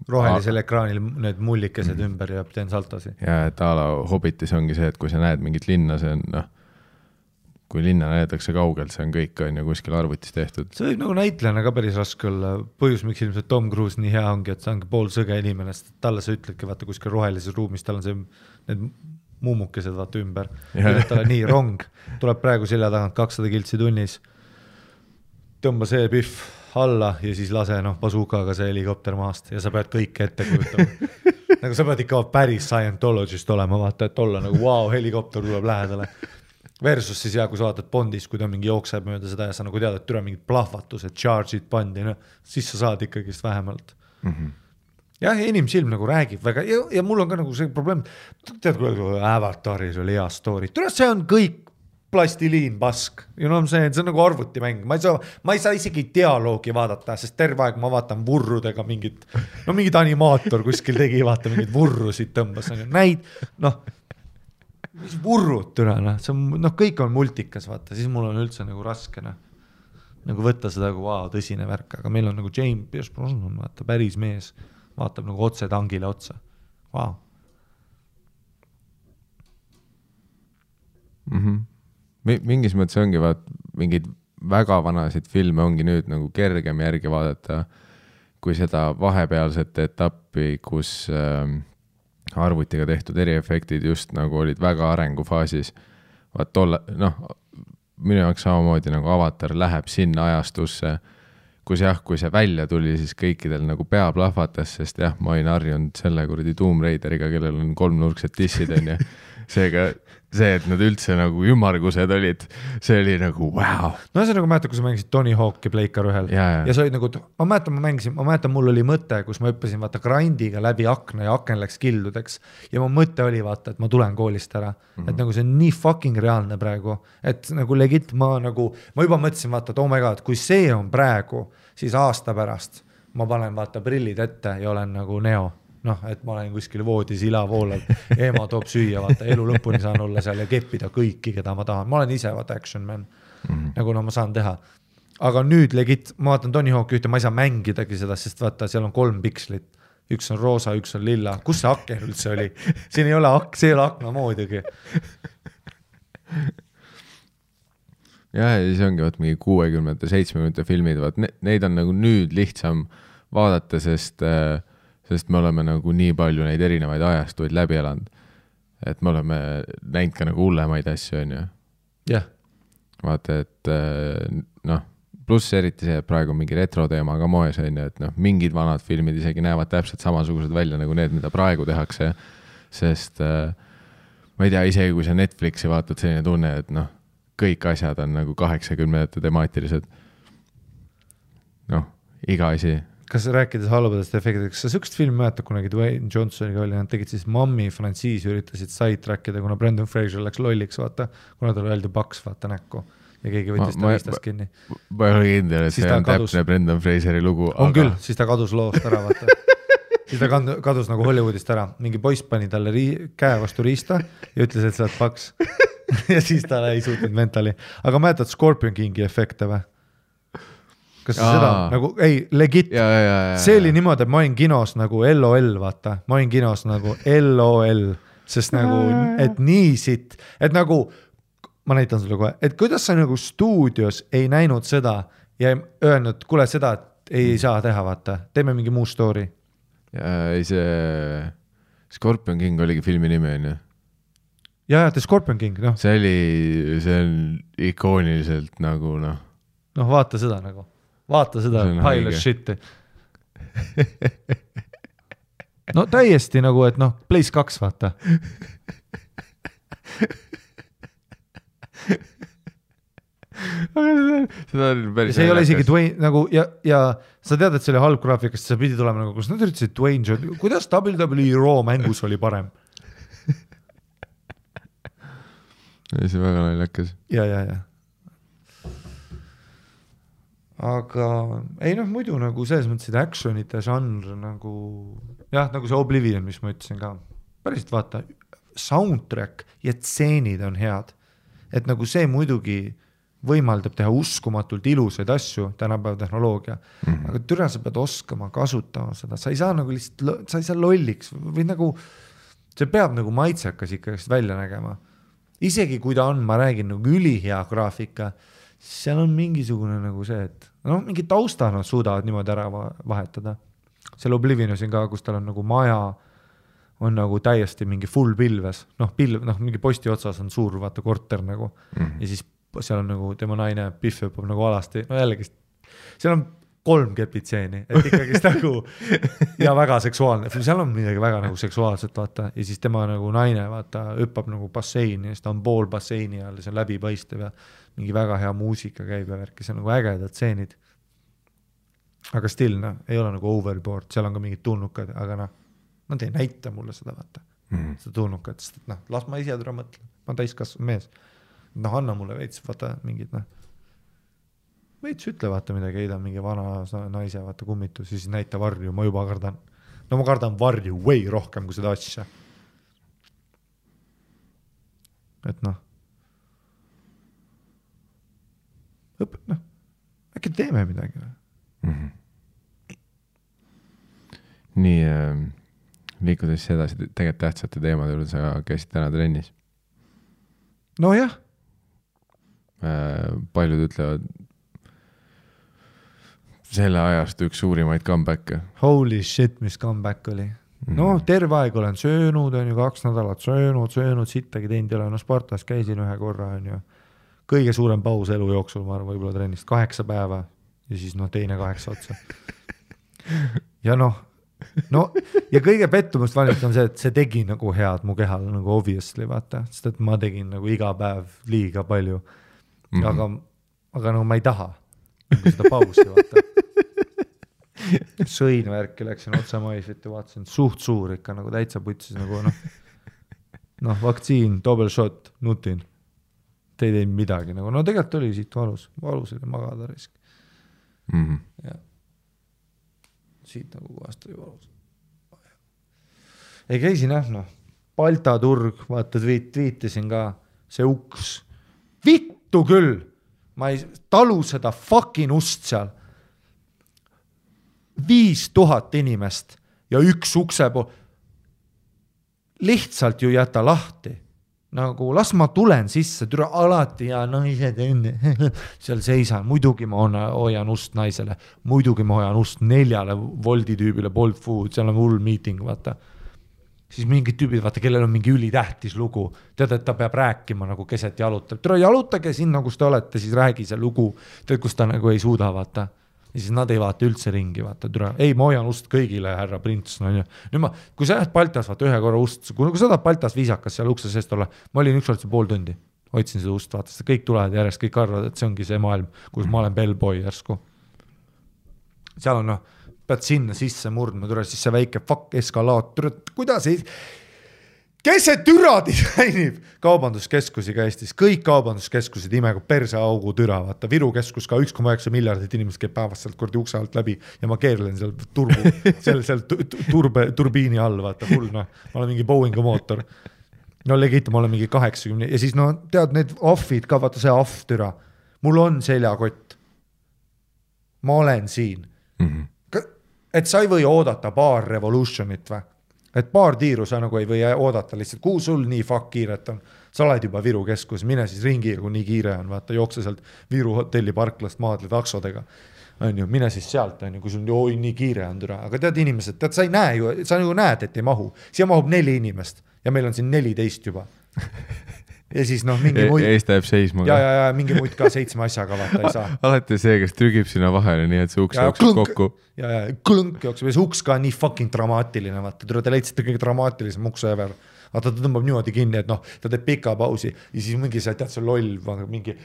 rohelisel ekraanil need mullikesed ümber ja teen saltosi. Ja et ala Hobbitis ongi see, et kui sa näed mingit linna, see on kui linna näetakse kaugelt, see on kõik on ju kuskil arvutis tehtud. See võib nagu näitlejana ka päris raske olla. Põhjus, miks ilmselt Tom Cruise nii hea ongi, et see ongi pool sõge inimene, sest talle sa ütledki, vaata kuskil rohelises ruumis, tal on see, need muumukesed vaata ümber. Talle nii rong, tuleb praegu selja tagant 200 kiltsi tunnis, tõmba see pihv alla ja siis lase bazookaga see helikopter maast ja sa pead kõike ette kujutama. Nagu sa pead ikka päris Scientologist olema, vaata, et olla nagu wow, helikopter tuleb lähedale. Versus siis kui sa vaatad Bondis, kui ta mingi jookseb mööda seda ja sa nagu tead, et türa mingid plahvatused, charge'id pandi, siis sa saad ikkagist vähemalt. Jah, inimsilm nagu räägib väga ja mul on ka nagu see probleem, tead, kui Avataris oli hea story, türa see on kõik plastiliin pask, see on nagu arvutimäng, ma ei saa isegi dialoogi vaadata, sest terve aeg ma vaatan vurrudega mingit animaator kuskil tegi, vaata mingid vurrusid tõmbas, näid, mis vurrud türa, see on, kõik on multikas, vaata, siis mul on üldse nagu raske, nagu võtta seda nagu tõsine värk, aga meil on nagu James Pierce Brosnan, vaata, päris mees, vaatab nagu otse tangile otsa, Mingis mõttes ongi, mingid väga vanasid filme ongi nüüd nagu kergem järgi vaadata, kui seda vahepealset etappi, kus arvutiga tehtud eriefektid just nagu olid väga arengufaasis. Minu jaoks samamoodi nagu Avatar läheb sinna ajastusse, kui see välja tuli, siis kõikidel nagu pea plahvatas, sest ma olin harjunud selle kuradi Tomb Raideriga, kellel on 3-nurksed tissid, on ju. Seega see, et nad üldse nagu ümargused olid, see oli nagu wow. No see nagu mäletan, kui sa mängisid Tony Hawk'i Pleikar 1 ja see oli nagu, ma mäletan, mul oli mõte, kus ma õppisin vaata grindiga läbi akna ja aken läks kildudeks ja mu mõte oli vaata, et ma tulen koolist ära, et nagu see on nii fucking reaalne praegu, et nagu legit ma juba mõtlesin vaata, et oh my god, kui see on praegu, siis aasta pärast ma panen vaata prillid ette ja olen nagu Neo. Et ma olen kuskil voodis ilavoolal, ema toob süüa, vaata, elu lõpuni saan olla seal ja keppida kõiki, keda ma tahan. Ma olen ise vaata action man, nagu ma saan teha. Aga nüüd legit, ma vaatan Tony Hawk'i ühte, ma ei saa mängidagi seda, sest vaata, seal on 3 pikslit. Üks on roosa, üks on lilla. Kus see aken üldse oli? Siin ei ole akna moodigi. Ja siis ongi mingi 60-te, 70-te filmid, neid on nagu nüüd lihtsam vaadata, sest me oleme nagu nii palju neid erinevaid ajastuid läbi elanud. et me oleme näinud ka nagu hullemaid asju, on ju. jah. Vaata, et noh, pluss eriti see, et praegu mingi retro teema ka moes, on ju, et noh, mingid vanad filmid isegi näevad täpselt samasugused välja nagu need, mida praegu tehakse, sest ma ei tea, isegi kui sa Netflixi vaatad, selline tunne, et noh, kõik asjad on nagu 80 temaatilised. Noh, iga asi. Kas rääkides halbadest efektidest, kas sa sükst film mäletad kunagi Dwayne Johnsoniga oli, nad tegid siis Mommy frantsiisi, üritasid sidetrackida, kuna Brendan Fraser läks lolliks, vaata, kuna tal öeldi paks, vaata näkku ja keegi võttis ta viistast kinni. Ma ei ole kindel, et see on täpne Brendan Fraseri lugu. On küll, siis ta kadus loost ära, vaata. Siis ta kadus nagu Hollywoodist ära. Mingi poiss pani talle käe vastu riista ja ütles, et sa oled paks. Ja siis ta ei suutnud mentali. Aga mäletad Scorpion Kingi efekte või? Kas seda nagu, ei, legit, see oli niimoodi, et ma olin kinos nagu LOL, vaata, ma olin kinos nagu LOL, sest nagu, et nii siit, et nagu, ma näitan sulle kohe, et kuidas sa nagu stuudios ei näinud seda ja öelnud, kuule seda, et ei saa teha, vaata, teeme mingi muu story. Ei see Scorpion King oligi filmi nimi, on ju? Ja, The Scorpion King, noh. See on ikooniliselt nagu, noh. Noh, vaata seda nagu. Vaata seda pile of shit'i. No täiesti nagu, et noh, Place 2, vaata. Seda on päris see ei ole isegi Dwayne nagu, ja sa tead, et see oli halb graafikast, sa pidi tulema nagu, kus nad üritasid Dwayne, kuidas WWE Raw mängus oli parem? See väga naljakas. Ja. Aga ei noh, muidu nagu selles mõttes, et actionite žanr nagu, jah, nagu see Oblivion, mis ma ütlesin ka, päriselt vaata, soundtrack ja tseenid on head, et nagu see muidugi võimaldab teha uskumatult ilusaid asju, tänapäeva tehnoloogia, aga türa sa pead oskama kasutama seda, sa ei saa nagu lihtsalt, sa ei saa lolliks või nagu, see peab nagu maitsekas ikka välja nägema. Isegi kui ta on, ma räägin nagu ülihea graafika, seal on mingisugune nagu see, et noh, mingi tausta nad suudavad niimoodi ära vahetada. Seal Oblivionusin ka, kus tal on nagu maja, on nagu täiesti mingi full pilves, noh, mingi posti otsas on suur, vaata, korter nagu, ja siis seal on nagu tema naine Biff õppab nagu alasti, no jällegi, seal on 3 kepitseeni, et ikkagist nagu, ja väga seksuaalne, seal on midagi väga nagu seksuaalset, vaata, ja siis tema nagu naine, vaata, õppab nagu basseini, ja siis ta on pool basseini all, see on läbipaistev ja mingi väga hea muusika käib ja värki, see on nagu ägedad tseenid. Aga still, noh, ei ole nagu overboard, seal on ka mingid tulnukad, aga noh, nad ei näita mulle seda, vaata, seda tulnukat, sest et noh, las ma ise türa mõtlen, ma täiskasvanud mees. Noh, anna mulle veits, vaata, mingid, noh, veits ütle, vaata midagi, heidan mingi vana naise, vaata, kummitus, ja siis näita varju, ma juba kardan. No ma kardan varju way rohkem kui seda asja. Et noh, äkki teeme midagi. Nii, liikudes edasi tegelikult tähtsate teemade juurde, sa käisid täna trennis. No jah. Paljud ütlevad selle ajast üks suurimaid comeback'e. Holy shit, mis comeback oli. No terve aeg olen söönud, on ju 2 nädalat söönud, sittagi teinud ei ole, no Spartas käisin 1 korra, on ju. Kõige suurem paus elu jooksul, ma arvan, võib-olla trennist 8 päeva ja siis noh, teine 8 otsa. Ja noh, ja kõige pettumust valmist on see, et see tegi nagu head mu kehal nagu obviously, vaata, sest et ma tegin nagu iga päev liiga palju. Aga nagu ma ei taha nagu seda pausi, vaata. Sõin värki, läksin otsa maisvit ja vaatasin suht suur ikka nagu täitsa putsis nagu noh, vaktsiin, double shot, nutin. Te ei teinud midagi nagu, no tegelikult oli siit valus oli magada risk. Ja. Siit nagu kohast oli valus. Ei käisin noh, Balta turg, vaata tweetisin ka, see uks, vittu küll, ma ei talu seda fucking ust seal, 5000 inimest ja üks ukse pool, lihtsalt ju jäta lahti. Nagu las ma tulen sisse, türa alati ja naised enne seal seisan, muidugi ma hoian ust naisele, muidugi ma hoian ust 4 Woldi tüübile Bolt Food, seal on hull meeting, vaata. siis mingid tüübid, vaata, kellel on mingi ülitähtis lugu, tead, et ta peab rääkima nagu keset jalutab. Tere, jalutage sinna, kus te olete, siis räägi see lugu, tead, kus ta nagu ei suuda, vaata. Ja siis nad ei vaata üldse ringi, vaata, tere, ei, ma hoian ust kõigile, härra prints, no ja. Nüüd kui sa lähed Baltas, vaata, ühe korra ust, kui sa tahad Baltas viisakas seal ukse seest olla, ma olin ükskord see pool tundi, hoidsin seda ust, vaata, seda kõik tulevad järjest, kõik arvavad, et see ongi see maailm, kus ma olen bellboy järsku. Seal on, pead sinna sisse murdma, tule siis see väike fuck eskalaator, kuidas ei... Kes see türa disainib? Kaubanduskeskusi ka Eestis, kõik kaubanduskeskused imega perseaugu türa, vaata, Viru keskus ka 1,9 miljardit inimesed käib päevast sealt kordi ukse alt läbi ja ma keerlen seal turbiini all, vaata, hull, ma olen mingi Boeingu mootor. No legit, ma olen mingi 80 ja siis tead need offid ka, vaata see off türa, mul on seljakott. Ma olen siin. Et sa ei või oodata paar revolutionit või? Et paar tiiru sa nagu ei või oodata lihtsalt, kuhu sul nii fuck kiiret on. Sa oled juba Viru keskus, mine siis ringi, kui nii kiire on, vaata, jookse sealt Viru hotelli parklast maadle taksodega. On ju, mine siis sealt, on ju, kui sul nii kiire on türa. Aga tead inimesed, tead, sa ei näe ju, sa nagu näed, et ei mahu. Siia mahub 4 inimest ja meil on siin 14 juba. Ja siis mingi muid... Ees täheb seisma. Ja mingi muid ka 7 asjaga, vaata, ei saa. Alati see, kes trügib sinna vahele, nii et see uks jookseb kokku. Ja klõnk jookseb ja see uks ka nii fucking dramaatiline, vaata, te leidsite kõige dramaatilisem ukse ever. Vaata, ta tõmbab niimoodi kinni, et ta teeb pika pausi ja siis mingi see, tead, see loll, mingi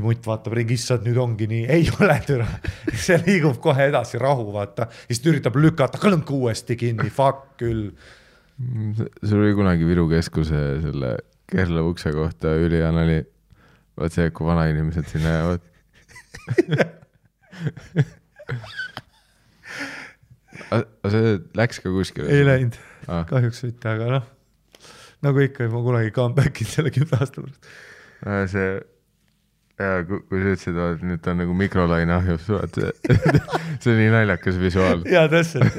mutt vaatab ringi, issad, nüüd ongi nii, ei ole türa. See liigub kohe edasi rahu, vaata, ja siis üritab lükata klõnk uuesti kinni, fuck küll. Sul oli kunagi Viru keskuse selle Kerla ukse kohta ülihan oli, vaat see, kui vana inimesed sinna jäävad. Aga see läks ka kuskil? Ei läinud, kahjuks võite, aga nagu ikka, ma kunagi comebackin selle 10 aasta pärast. See, kui sa ütlesid, et nüüd ta on nagu mikrolaine ahjus, see on nii naljakas visuaal. Jaa, täpselt.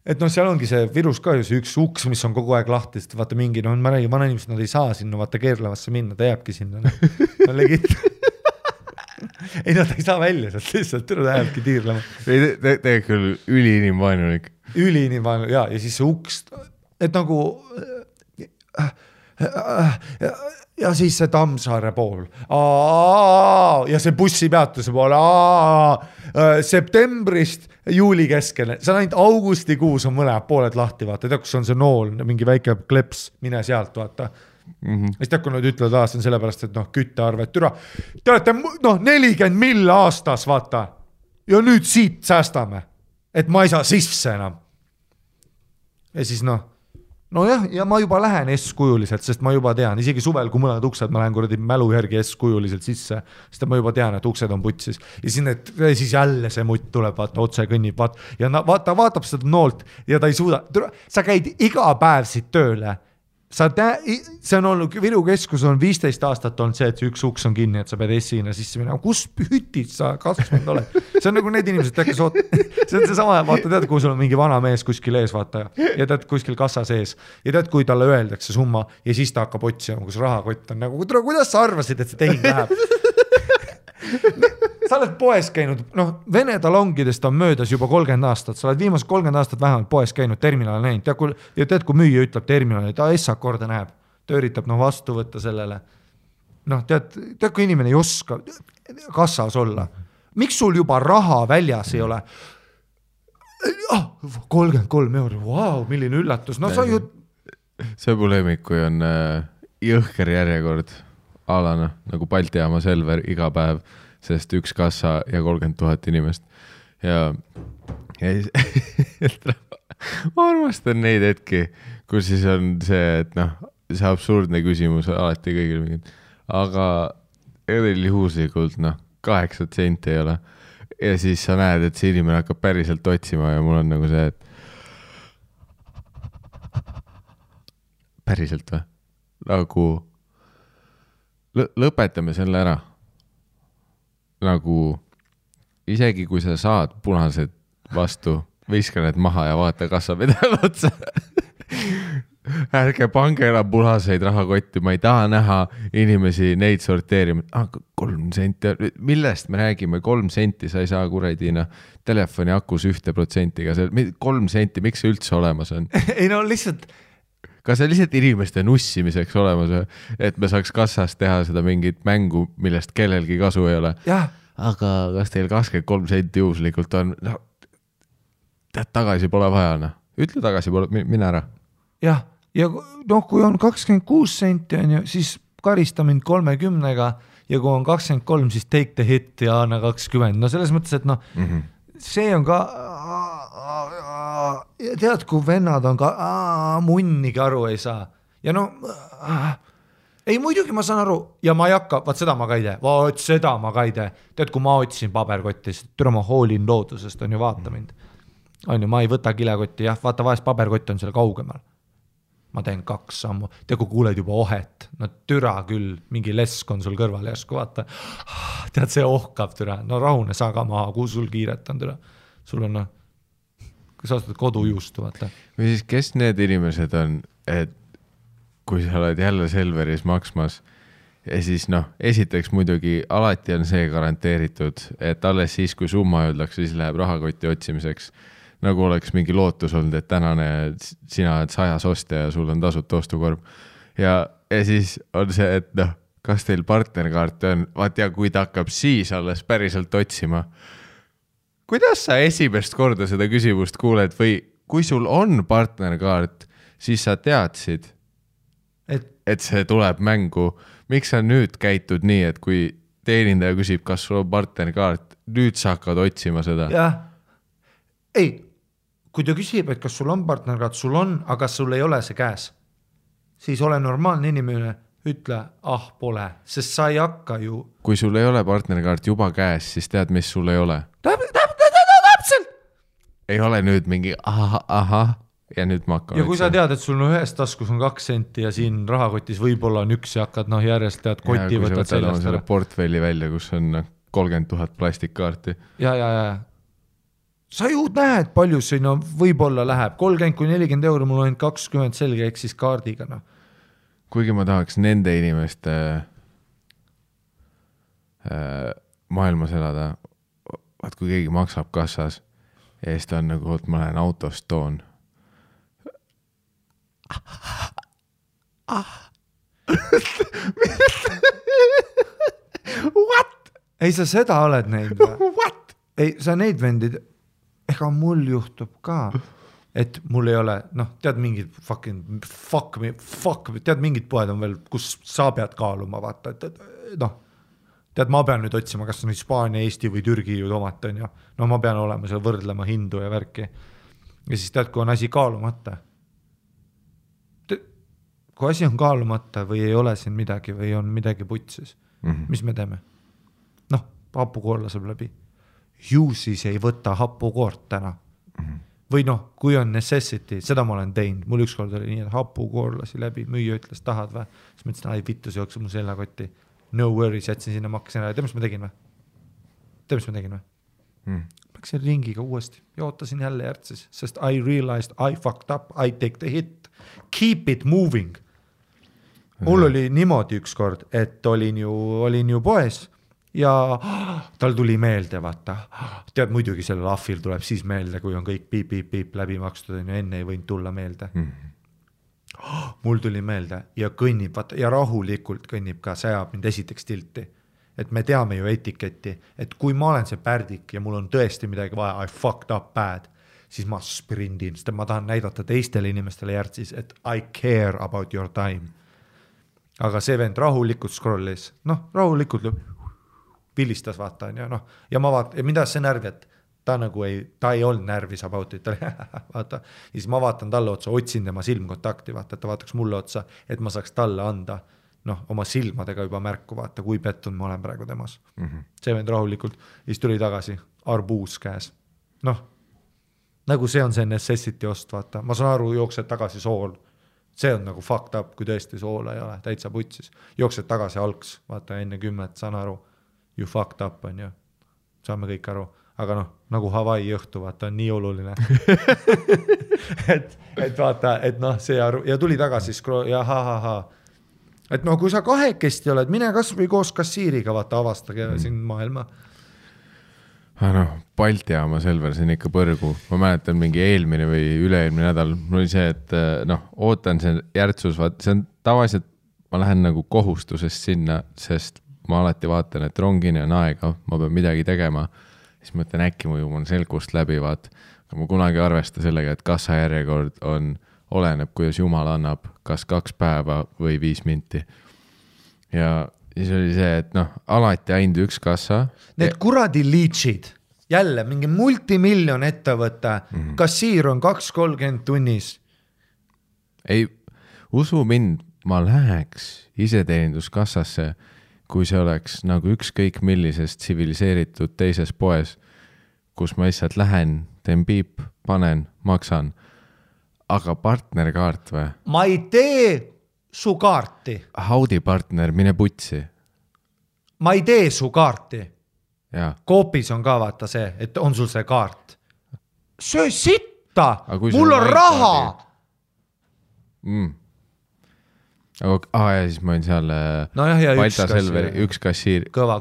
Et seal ongi see Virus ka ju see üks uks, mis on kogu aeg lahti, sest vaata mingi, ma räägin, vana inimesed, nad ei saa sinna vaata keerlevasse minna, ta jääbki sinna. No legit. Ei, nad ei saa välja sealt lihtsalt, ta jääbki tiirlema. Tegelikult küll üliinimvaenulik. Üliinimvaenulik, ja siis see uks, et nagu... Ja siis see Tammsaare pool. Ja see bussipeatuse pool. Septembrist juuli keskele. See on ainult augustikuus on mõlemad pooled lahti, vaata. Tead, kus on see nool, mingi väike kleps, mine sealt, vaata. Siis tead, kui nad ütlevad, see on sellepärast, et küttearvet türa. Te olete 40 mill aastas, vaata. Ja nüüd siit säästame. Et ma ei saa sisse enam. Ja siis Nojah, ja ma juba lähen S-kujuliselt, sest ma juba tean, isegi suvel, kui mõned uksed, ma lähen kuradi mälu järgi S-kujuliselt sisse, sest ma juba tean, et uksed on putsis. Ja siis jälle see mutt tuleb, vaata, otse kõnnib, ja vaatab seda noolt ja ta ei suuda. Sa käid iga päev siit tööle. See on olnud, Viru keskus on 15 aastat olnud see, et üks uks on kinni, et sa pead S-ina sisse minema. Kus hütid sa kasvanud oled? See on nagu need inimesed, see on see sama, vaata, tead, kui sul on mingi vana mees kuskil ees, vaata, ja tead kuskil kassa sees, ja tead, kui talle öeldakse summa, ja siis ta hakkab otsima, kus rahakott on nagu, kuidas sa arvasid, et see tehing läheb? Sa oled poes käinud, Vene talongidest on möödas juba 30 aastat, sa oled viimased 30 aastat vähemalt poes käinud, terminal näinud, ja tead, kui müüja ütleb terminali, ta essak korda näeb, ta üritab vastu võtta sellele. Tead, kui inimene ei oska kassas olla, miks sul juba raha väljas ei ole? 33 €, wow, milline üllatus, sa ju... See põlemik, kui on jõhker järjekord alana, nagu Balti jaama Selver iga päev, sest üks kassa ja 30 000 inimest. Ja ma armastan neid hetki, kus siis on see, et see absurdne küsimus alati kõigil mingid, aga juhuslikult 8 senti ei ole. Ja siis sa näed, et see inimene hakkab päriselt otsima ja mul on nagu see, et päriselt või? Nagu lõpetame selle ära. Nagu isegi kui sa saad punased vastu, viska need maha ja vaata kassa pedal otsa. ärge pange enam punaseid rahakotti, ma ei taha näha inimesi neid sorteerima. 3 senti, millest me räägime, 3 senti, sa ei saa kuradina telefoni akus 1%-ga, 3 senti, miks see üldse olemas on? Ei no lihtsalt... Kas see lihtsalt inimeste nussimiseks olemas, et me saaks kassas teha seda mingit mängu, millest kellelgi kasu ei ole? Jah. Aga kas teil 23 senti juhuslikult on? No, tead, tagasi pole vaja, noh. Ütle tagasi, mine ära. Jah, ja noh, kui on 26 senti, on ju, siis karista mind 30-ga ja kui on 23, siis take the hit ja anna 20. No selles mõttes, et noh, see on ka... tead, kui vennad on ka munnigi aru ei saa ja no ei muidugi ma saan aru ja ma ei hakka, vaat seda ma ka ei tee, tead kui ma otsin paberkottist, türa ma hoolin loodusest on ju, vaata mind on ju, ma ei võta kilekotti, jah, vaata vahest paberkott on seal kaugemal, ma teen 2 sammu, tead kui kuuled juba ohet, no türa küll, mingi lesk on sul kõrval järsku, vaata tead see ohkab türa, no rahune saa ka maha, kuhu sul kiiret on türa, sul on noh kui sa ostad kodujuustu, vaata. Või siis kes need inimesed on, et kui sa oled jälle Selveris maksmas ja siis noh, esiteks muidugi alati on see garanteeritud, et alles siis, kui summa öeldakse, siis läheb rahakoti otsimiseks. Nagu oleks mingi lootus olnud, et tänane sina oled 100 ostja ja sul on tasuta ostukorb. Ja siis on see, et noh, kas teil partnerkaart on, vaat ja kui ta hakkab siis alles päriselt otsima, kuidas sa esimest korda seda küsimust kuuled või kui sul on partnerkaart, siis sa teadsid, et see tuleb mängu. Miks sa nüüd käitud nii, et kui teenindaja küsib, kas sul on partnerkaart, nüüd sa hakkad otsima seda? Jah. Ei, kui ta küsib, et kas sul on partnerkaart, sul on, aga sul ei ole see käes, siis ole normaalne inimene, ütle, pole, sest sa ei hakka ju... Kui sul ei ole partnerkaart juba käes, siis tead, mis sul ei ole? Täpselt! Ei ole nüüd mingi ahah ja nüüd ma hakkan... Ja kui sa tead, et sul on ühes taskus on 2 senti ja siin rahakotis võib-olla on 1 ja hakkad järjest tead koti võtad sellest ära. Portfelli välja, kus on 30 000 plastikkaarti. Ja. Sa ju näed, palju sinna võib-olla läheb. 30-40 euro, mul on 20 selge ehk siis kaardiga. No. Kuigi ma tahaks nende inimeste maailmas elada, vaat kui keegi maksab kassas ja siis ta on nagu, et ma lähen autost toon. What? Ei, sa seda oled näinud või? What? Ei, sa neid vendid, ega mul juhtub ka, et mul ei ole, noh, tead mingid fuck, tead mingid poed on veel, kus sa pead kaaluma, vaata, et noh, tead, ma pean nüüd otsima, kas on Hispaania, Eesti või Türgi ju tomat on ja no ma pean olema seal võrdlema hindu ja värki. Ja siis tead, kui on asi kaalumata. Kui asi on kaalumata või ei ole siin midagi või on midagi putsis, mis me teeme? Noh, hapukoorla saab läbi. Ju siis ei võta hapukoort täna. Või noh, kui on necessity, seda ma olen teinud. Mul ükskord oli nii, et hapukoorlasi läbi, müüja ütles, tahad või? Siis ma ütlesin, vittu, see jookse mu sellakotti. No worries, jätsin sinna, maksin ära. Tead, mis ma tegin või? Läksin ringiga uuesti ja ootasin jälle järtsis, sest I realized I fucked up, I take the hit. Keep it moving. Mul oli niimoodi ükskord, et olin ju poes ja tal tuli meelde, vaata. Tead, muidugi sellel ahvil tuleb siis meelde, kui on kõik piip läbi makstud, ja enne ei võinud tulla meelde. Mul tuli meelde ja kõnnib, vaata, ja rahulikult kõnnib ka, sajab mind esiteks tilti. Et me teame ju etiketti, et kui ma olen see pärdik ja mul on tõesti midagi vaja, I fucked up bad, siis ma sprindin, sest ma tahan näidata teistele inimestele järtsis, et I care about your time. Aga see vend rahulikult scrollis, noh, rahulikult pilistas, vaata, ja noh, ja ma vaatan, ja mida see närvi, et ta ei olnud närvis about it, vaata, ja siis ma vaatan talle otsa, otsin tema silmkontakti, vaata, et ta vaataks mulle otsa, et ma saaks talle anda, noh, oma silmadega juba märku, vaata, kui pettun ma olen praegu temas. See vend rahulikult, ja siis tuli tagasi, arbuus käes. Noh, nagu see on see necessity ost, vaata, ma saan aru, jooksed tagasi sool, see on nagu fucked up, kui tõesti soola ei ole, täitsa putsis, jooksed tagasi algs, vaata, enne 10, saan aru, you fucked up, on ju, saame kõik aru. aga noh, nagu Hawaii õhtu, vaata, on nii oluline et vaata, et noh, see ja tuli tagasi ja et no kui sa kahekesti oled, mine kas või koos kassiiriga, vaata, avastage siin maailma. Noh, Balti jaama Selver, see on ikka põrgu. Ma mäletan mingi eelmine või üle-eelmine nädal, mul oli see, et noh, ootan see järtsus, vaata, see on tavaliselt, ma lähen nagu kohustusest sinna, sest ma alati vaatan, et rongini on aega, ma pean midagi tegema. Siis mõtlen, äkki mu on selgust läbi, vaat. Aga ma kunagi arvesta sellega, et kassajärjekord oleneb, kuidas Jumal annab, kas 2 päeva või 5 minti. Ja siis oli see, et noh, alati ainult üks kassa. Need kuradi liitsid, jälle mingi multimiljon ettevõte, kassiir on 2.30 tunnis. Ei, usu mind, ma läheks iseteeninduskassasse, kui see oleks nagu ükskõik millisest tsiviliseeritud teises poes, kus ma lihtsalt lähen, teen piip, panen, maksan. Aga partnerkaart või? Ma ei tee su kaarti. Haudi partner, mine putsi. Ma ei tee su kaarti. Ja. Koopis on ka vaata see, et on sul see kaart. Söö sitta, mul on raha. Ja siis ma olin seal Balta Selveri üks kassiir. Kõva.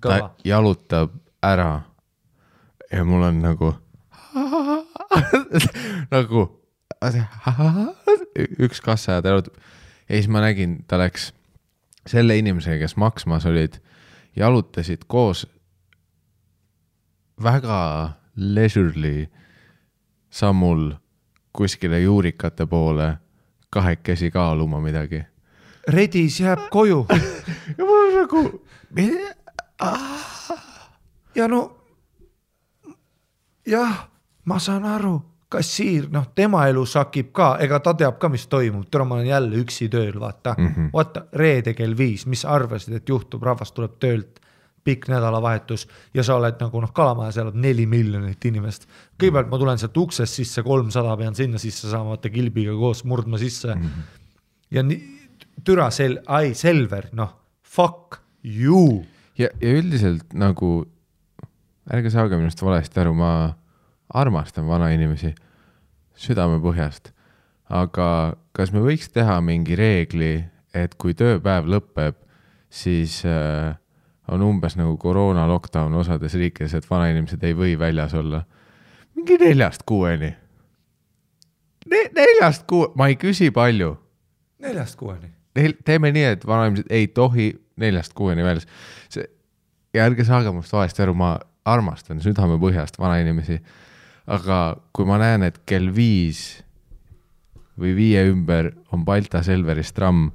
Ta jalutab ära ja mul on nagu nagu üks kassa ja ta jalutab. Ja siis ma nägin, ta läks selle inimesega, kes maksmas olid, jalutasid koos väga leisurely sammul kuskile juurikate poole kahekesi kaaluma midagi. Redis jääb koju. Ja mul on nagu ja no jah, ma saan aru, kassiir, noh, tema elu sakib ka, ega ta teab ka, mis toimub. Täna ma olen jälle üksi tööl, vaata. Vaata, reede kell 5, mis arvasid, et juhtub, rahvas tuleb töölt, pikk nädalavahetus ja sa oled nagu Kalamajas elab 4 miljonit inimest. Kõigepealt ma tulen sealt uksest sisse, 300 pean sinna sisse saama, vaata kilbiga koos murdma sisse. Ja türa Selver, noh, fuck you. Ja üldiselt nagu, ärge saage minust valesti aru, ma armastan vana inimesi südame põhjast, aga kas me võiks teha mingi reegli, et kui tööpäev lõpeb, siis on umbes nagu koroona lockdown osades riikides, et vana inimesed ei või väljas olla. Mingi 4-6. 4-6, ma ei küsi palju. 4-6. Teeme nii, et vana inimesed ei tohi 4-6 väljas. Ja ärge saage must valesti aru, ma armastan südame põhjast vana inimesi. Aga kui ma näen, et kell 5 või 5 ümber on Balta Selveris tramm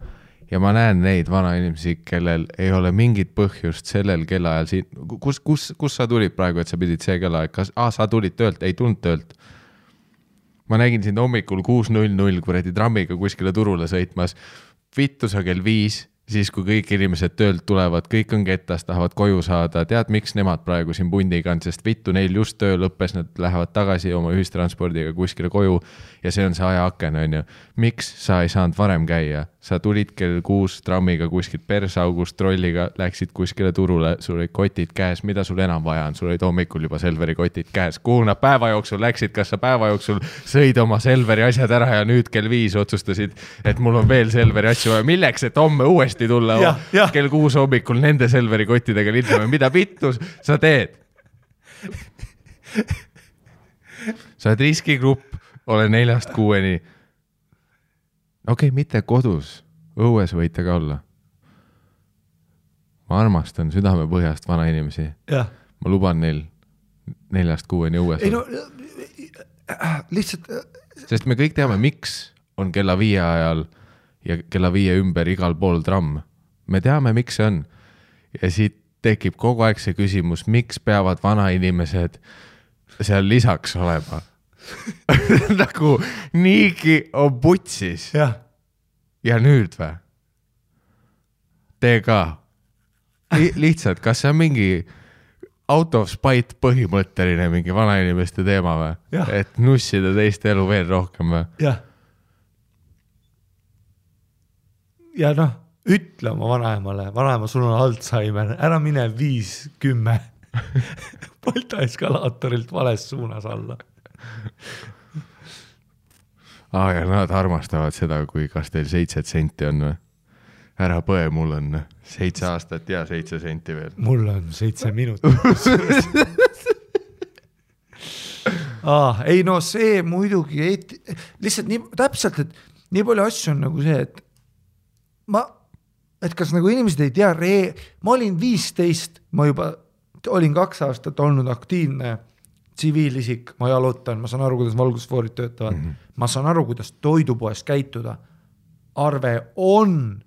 ja ma näen neid vana inimesi, kellel ei ole mingit põhjust sellel kellaajal siin, kus sa tulid praegu, et sa pidid see kellaajal, kas sa tulid töölt, ei tulnud töölt. Ma nägin sind hommikul 6.00 kuradi trammiga kuskile turule sõitmas, vittu sa kell 5, siis kui kõik inimesed töölt tulevad, kõik on kettas, tahavad koju saada, tead, miks nemad praegu siin pundiga on, sest vittu neil just töö lõppes, nad lähevad tagasi oma ühistranspordiga kuskile koju ja see on see ajaaken, on ju. Miks sa ei saanud varem käia? Sa tulid kell 6 trammiga kuskilt persaugust trolliga, läksid kuskile turule, sul olid kotid käes, mida sul enam vaja on? Sul olid hommikul juba Selveri kotid käes. Kuhu nad päeva jooksul läksid? Kas sa päeva jooksul sõid oma Selveri asjad ära ja nüüd kell 5 otsustasid, et mul on veel Selveri asju vaja? Milleks, et homme uuesti tulla kell 6 hommikul nende Selveri kottidega lindame? Mida vittu sa teed? Sa oled riskigrupp, ole 4-6. Okei, mitte kodus, õues võite ka olla. Ma armastan südame põhjast vana inimesi. Ja. Ma luban neil 4-6 õues. Ei no, lihtsalt... Sest me kõik teame, miks on kella 5 ajal ja kella 5 ümber igal pool tramm. Me teame, miks see on. Ja siit tekib kogu aeg see küsimus, miks peavad vana inimesed seal lisaks olema. Nagu niigi on putsis. Ja nüüd või? Tee ka. Lihtsalt, kas see on mingi out of spite põhimõtteline mingi vana inimeste teema või? Et nussida teiste elu veel rohkem või? Ja noh, ütle oma vanaemale, vanaema, sul on Alzheimer, ära mine 5-10. Balta eskalaatorilt vales suunas alla. Ja nad armastavad seda, kui kas teil 7 senti on või? Ära põe, mul on 7 aastat ja 7 senti veel. Mul on 7 minutit. Ei no see muidugi lihtsalt nii täpselt, et nii palju asju on nagu see, et kas nagu inimesed ei tea, ma olin 15, ma juba olin 2 aastat olnud aktiivne tsiviilisik, ma jalutan, ma saan aru, kuidas valgusfoorid töötavad, ma saan aru, kuidas toidupoes käituda. Arve on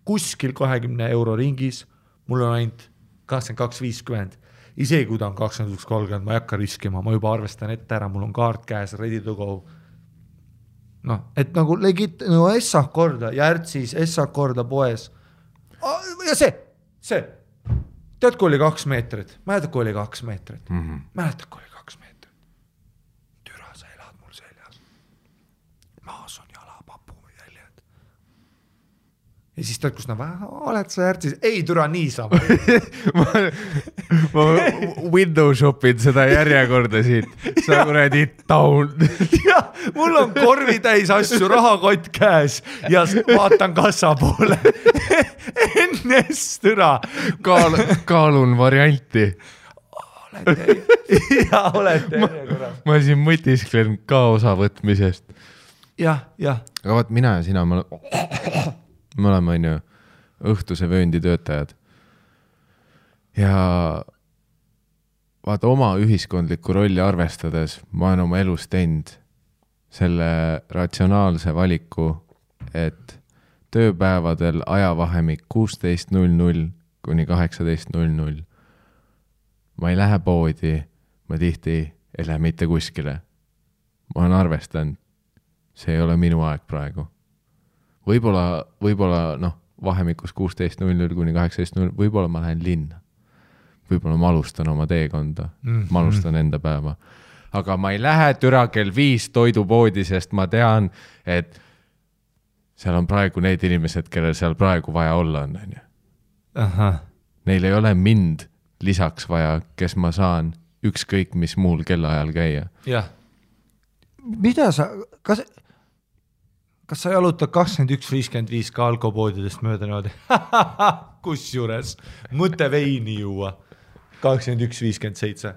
kuskil 20 euro ringis, mul on ainult 22.50. Isegi kui ta on 21.30, ma ei hakka riskima, ma juba arvestan ette ära, mul on kaart käes, ready to go. No, et nagu legit, no Essak korda, Järtsis, Essak korda poes. Ja see. Tead, kui oli 2 meetrit? Mäletad, kui oli 2 meetrit? Mäletad, kui oli 2 meetrit? Türa, sa elad mul seljas. Maas on jalapapu jäljed. Ja siis tead, kus oled sa Järtsis? Ei, türa, niisama. ma window shopin seda järjekorda siit. Sa kuradi down. Ja, mul on korvi täis asju, rahakott käes ja vaatan kassa poole. Ennest türa. Kaalun varianti. Olete. Ma siin mõtisklen ka osa võtmisest. Ja. Aga vaat mina ja sina, me oleme on ju õhtuse vööndi töötajad. Ja vaata oma ühiskondlikku rolli arvestades ma olen oma elus teinud selle ratsionaalse valiku, et tööpäevadel ajavahemik 16.00 kuni 18.00 ma ei lähe poodi, ma tihti ei lähe mitte kuskile. Ma olen arvestanud, see ei ole minu aeg praegu. Võib-olla vahemikus 16.00 kuni 18.00 võib-olla ma lähen linna. Võib-olla ma alustan oma teekonda, ma alustan enda päeva. Aga ma ei lähe türa kell 5 toidupoodi, sest ma tean, et seal on praegu need inimesed, kellel seal praegu vaja olla on. Neil ei ole mind lisaks vaja, kes ma saan ükskõik mis muul kellaajal käia. Jah. Mida sa, kas sa jalutad 21.55 ka alkopoodidest mööda niimoodi? Kus juures? Mõte veini juua. 21.57.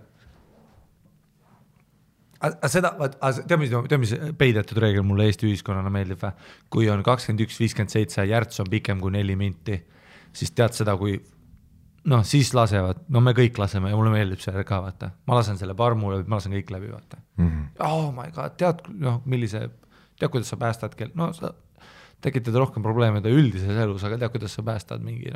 Tead, mis peidetud reegel mulle Eesti ühiskonnana meeldib või? Kui on 21.57 järts on pikem kui 4 minti, siis tead seda, kui siis lasevad, me kõik laseme ja mulle meeldib see ka, vaata. Ma lasen selle parmu läbi, ma lasen kõik läbi, vaata. Oh my god, tead, kuidas sa päästad kell, sa tekitad rohkem probleemide üldises elus, aga tead, kuidas sa päästad mingi,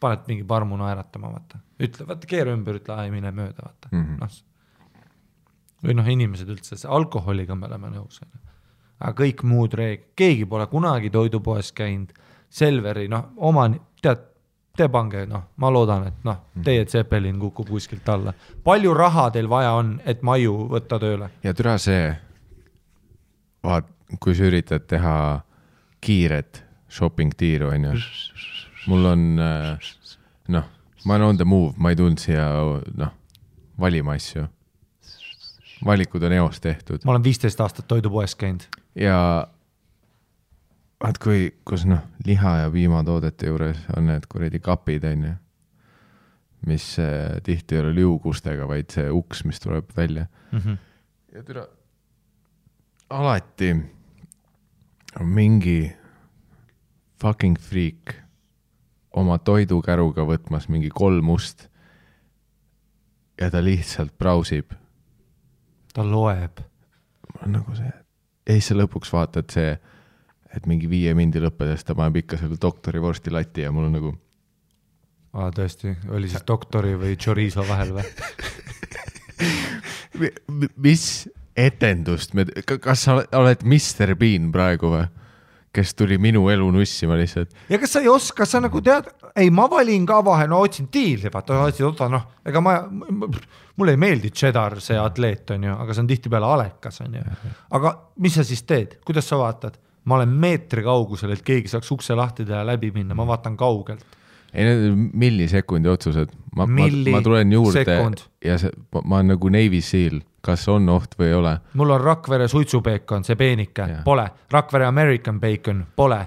paned mingi parmu naeratama, vaata. Ütle, vaata, keera ümber, ütle, ei mine mööda, vaata. Või inimesed üldse, see alkoholiga me oleme nõus. Aga kõik muud keegi pole kunagi toidupoes käinud, Selveri, te pange, ma loodan, et teie Zeppelin kukub kuskilt alla. Palju raha teil vaja on, et maju võtta tööle? Ja türa see, kui sa üritad teha kiiret shopping-tiiru, mul on, ma olen on the move, ma ei tulnud siia, valima asju. Valikud on eos tehtud. Ma olen 15 aastat toidupoes käinud. Ja vaat kus liha ja piimatoodete juures on need kuredi kapid, mis tihti ei ole liugustega, vaid see uks, mis tuleb välja. Ja türa, alati on mingi fucking freak oma toidukäruga võtmas mingi 3 must ja ta lihtsalt brausib. Ta loeb. Nagu see. Ja siis sa lõpuks vaatad see, et mingi 5 mindi lõppedes ta paneb ikka selle doktori vorsti lati ja mul on nagu... Tõesti, oli siis doktori või chorizo vahel või? Mis etendust? Kas sa oled Mr. Bean praegu või? Kes tuli minu elu nussima lihtsalt. Ja kas sa ei oska, sa nagu tead, ei ma valin ka vahe, otsin diili, vaata, ega mulle ei meeldi cheddar, see atleet on ju, aga see on tihti peale alekas on ju. Aga mis sa siis teed? Kuidas sa vaatad? Ma olen meetri kaugusel, et keegi saaks ukse lahti teha läbi minna, ma vaatan kaugelt. ei, need millisekundi otsused. Ma tulen juurde ja ma olen nagu Navy Seal, kas on oht või ei ole. Mul on Rakvere suitsupeekon, see peenike, pole. Rakvere American bacon, pole.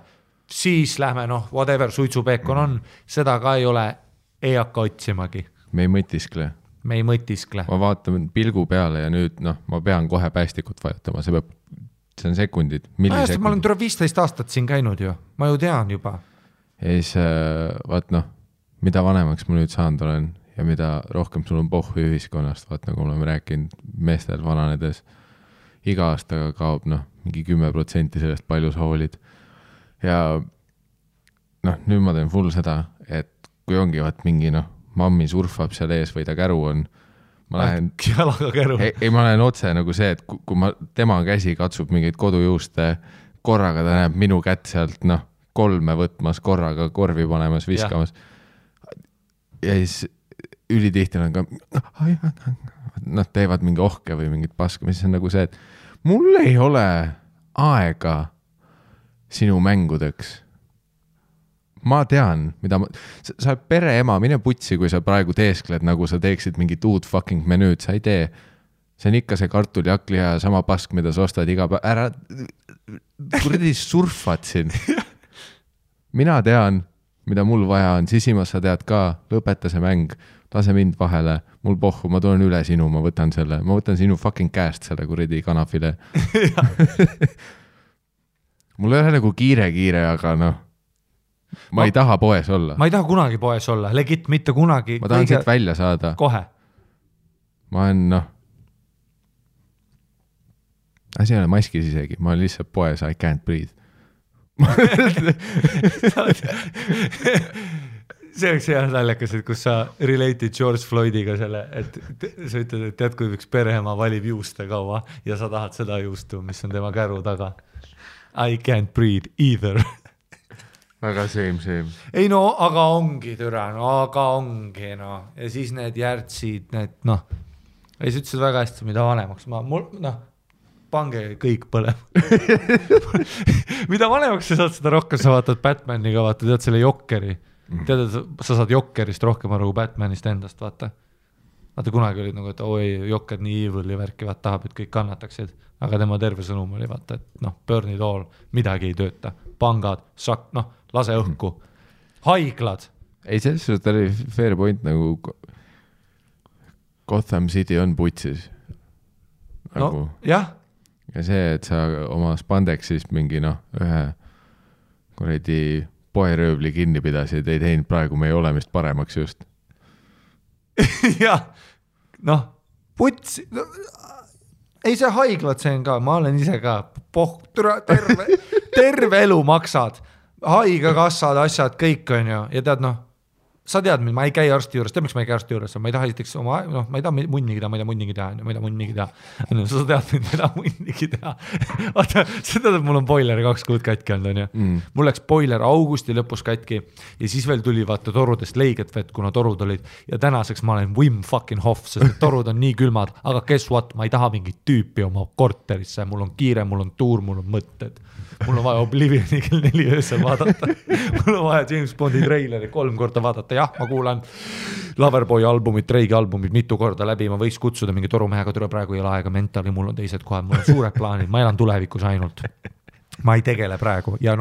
Siis lähme, whatever suitsupeekon on, seda ka ei ole, ei hakka otsimagi. Me ei mõtiskle. Ma vaatan pilgu peale ja nüüd, ma pean kohe päästikut vajutama, see on sekundid, millisekundid. Ma olen 15 aastat siin käinud ju, ma ju tean juba. Ja siis, mida vanemaks ma nüüd saanud olen ja mida rohkem sul on pohhu ühiskonnast, nagu oleme rääkinud meestel vananedes, iga aastaga kaob mingi 10% sellest palju sa hoolid. Ja nüüd ma teen full seda, et kui ongi mingi mammi surfab seal ees või ta käru on, ma lähen jalaga käru. Ei, ma lähen otse nagu see, et kui tema käsi katsub mingeid kodujuuste, korraga ta näeb minu kätt sealt 3 võtmas, korraga korvi panemas, viskamas. Ja siis ülitihti on ka teevad mingi ohke või mingit paska, mis on nagu see, et mul ei ole aega sinu mängudeks. Ma tean, mida sa oled pereema, mine putsi, kui sa praegu teeskled, nagu sa teeksid mingit uut fucking menüüd, sa ei tee. See on ikka see kartuli hakliha ja sama pask, mida sa ostad iga päev. Ära, kuradi surfad siin. Mina tean, mida mul vaja on, sisimas sa tead ka, lõpeta see mäng, lase mind vahele, mul pohhu, ma tulen üle sinu, ma võtan sinu fucking käest selle kuradi kanafile. Mul ei ole nagu kiire, aga ma ei taha poes olla. Ma ei taha kunagi poes olla, legit mitte kunagi. Ma tahan siit välja saada. Kohe. Ma olen, asi ei ole maskis isegi, ma olen lihtsalt poes, I can't breathe. See oleks hea naljakas, et kus sa related George Floydiga selle, et sa ütled, et tead, kui üks pereema valib juuste kaua ja sa tahad seda juustu, mis on tema käru taga. I can't breathe either. Väga same. Ei aga ongi türa, aga ongi ja siis need järtsid, need ja siis ütlesid väga hästi, mida vanemaks pange kõik põlema. Mida vanemaks sa saad seda rohkem, sa vaatad Batmaniga, tead selle Jokkeri, tead, sa saad Jokkerist rohkem aru Batmanist endast, vaata kunagi oli nagu, et oi, Jokker nii evil ja värki, tahab, et kõik kannataksid, aga tema terve sõnum oli, vaata, et burn it all, midagi ei tööta, pangad, lase õhku, haiglad. Ei, selles suhtes oli fair point, nagu Gotham City on putsis. Nagu. Jah. Ja see, et sa oma spandexist mingi ühe kuradi poeröövli kinni pidasid, ei teinud praegu meie olemist paremaks just. Jah, putsi, ei see haiglad, see on ka, ma olen ise ka, terve elu maksad, haigekassad, asjad, kõik on ju, ja tead sa tead, ma ei käi arsti juures, miks ma ei käi arsti juures, ma ei taha esiteks ma ei taha munnigi teha, ma ei taha munnigi teha, sa tead, ma ei taha munnigi teha. Vaata, sa tead, et mul on boiler 2 kuud katki olnud, on ju. Mul läks boiler augusti lõpus katki ja siis veel tuli vaata torudest leiget vett, kuna torud olid ja tänaseks ma olen Wim fucking Hof, sest torud on nii külmad, aga guess what, ma ei taha mingit tüüpi oma korterisse, mul on kiire, mul on tuur, mul on mõtted. Mul on vaja Oblivioni kell 4 öösel vaadata. Mul on vaja James Bondi treileri 3 korda vaadata. Jah, ma kuulan Loverboy albumit, Dreigi albumit mitu korda läbi. Ma võiks kutsuda mingi torumehega, tule praegu ei ole aega mentali, mul on teised kohad, mul on suured plaanid, ma elan tulevikus ainult. Ma ei tegele praegu ja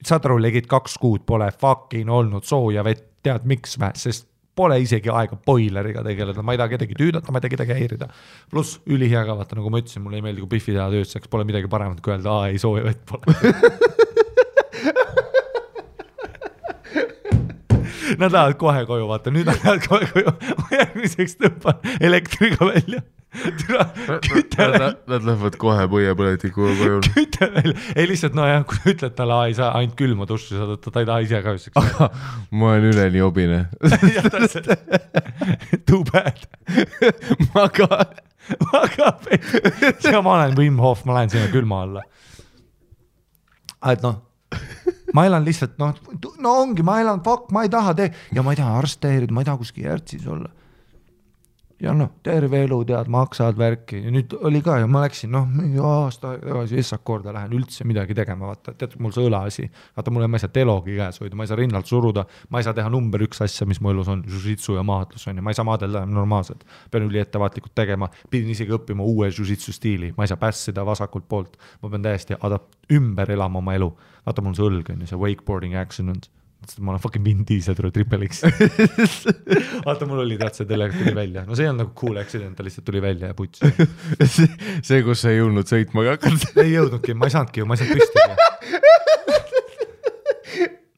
saad aru, legid 2 kuud pole fucking olnud sooja vett, tead miks vä, sest pole isegi aega boileriga tegeleda, ma ei taha kedagi tüüdata, ma ei taha kedagi häirida. Pluss ülihea ka, vaata, nagu ma ütlesin, mulle ei meeldi, kui Biffi teha tööseks, pole midagi paremat kui öelda, ei sooja vett pole. Nad lähevad kohe koju, vaata, nüüd nad lähevad kohe koju, ma järgmiseks tõmban elektriga välja. Nad lähevad kohe põiepõletiku koju. Küte välja, ei lihtsalt, kui ütled talle, ei saa ainult külma duši saada, ta ei taha ise ka üseks. Ma olen üle nii obine. Too bad. Ma ka. Ja ma olen Wim Hof, ma lähen sinna külma alla. Et ma elan lihtsalt, ongi, ma elan, ma ei taha ja ma ei taha arste häirida, ma ei taha kuskil järtsis olla. ja noh, terve elu tead, maksad värki ja nüüd oli ka ja ma läksin, noh, mingi aasta tagasi Essak korda lähen üldse midagi tegema, vaata, tead, mul see õlaasi, vaata, mulle ma ei saa telogi käes hoida, ma ei saa rinnalt suruda, ma ei saa teha number 1 asja, mis mu elus on, jiu-jitsu ja maatlus on ja ma ei saa maadelda normaalselt, pean üli ettevaatlikult tegema, pidin isegi õppima uue jiu-jitsu stiili, ma ei saa pässida vasakult poolt, ma pean täiesti ümber elama oma elu, vaata, mul see õlg on ja see wakeboarding accident, ma olen fucking Vin Diesel tuli Triple X. Vaata, mul oli see tellega tuli välja. No see on nagu cool accident, ta lihtsalt tuli välja ja puts. see, kus sa ei jõudnud sõitma ka hakanud. Ei jõudnudki, ma ei saanudki ju, ma ei saanud püstigi.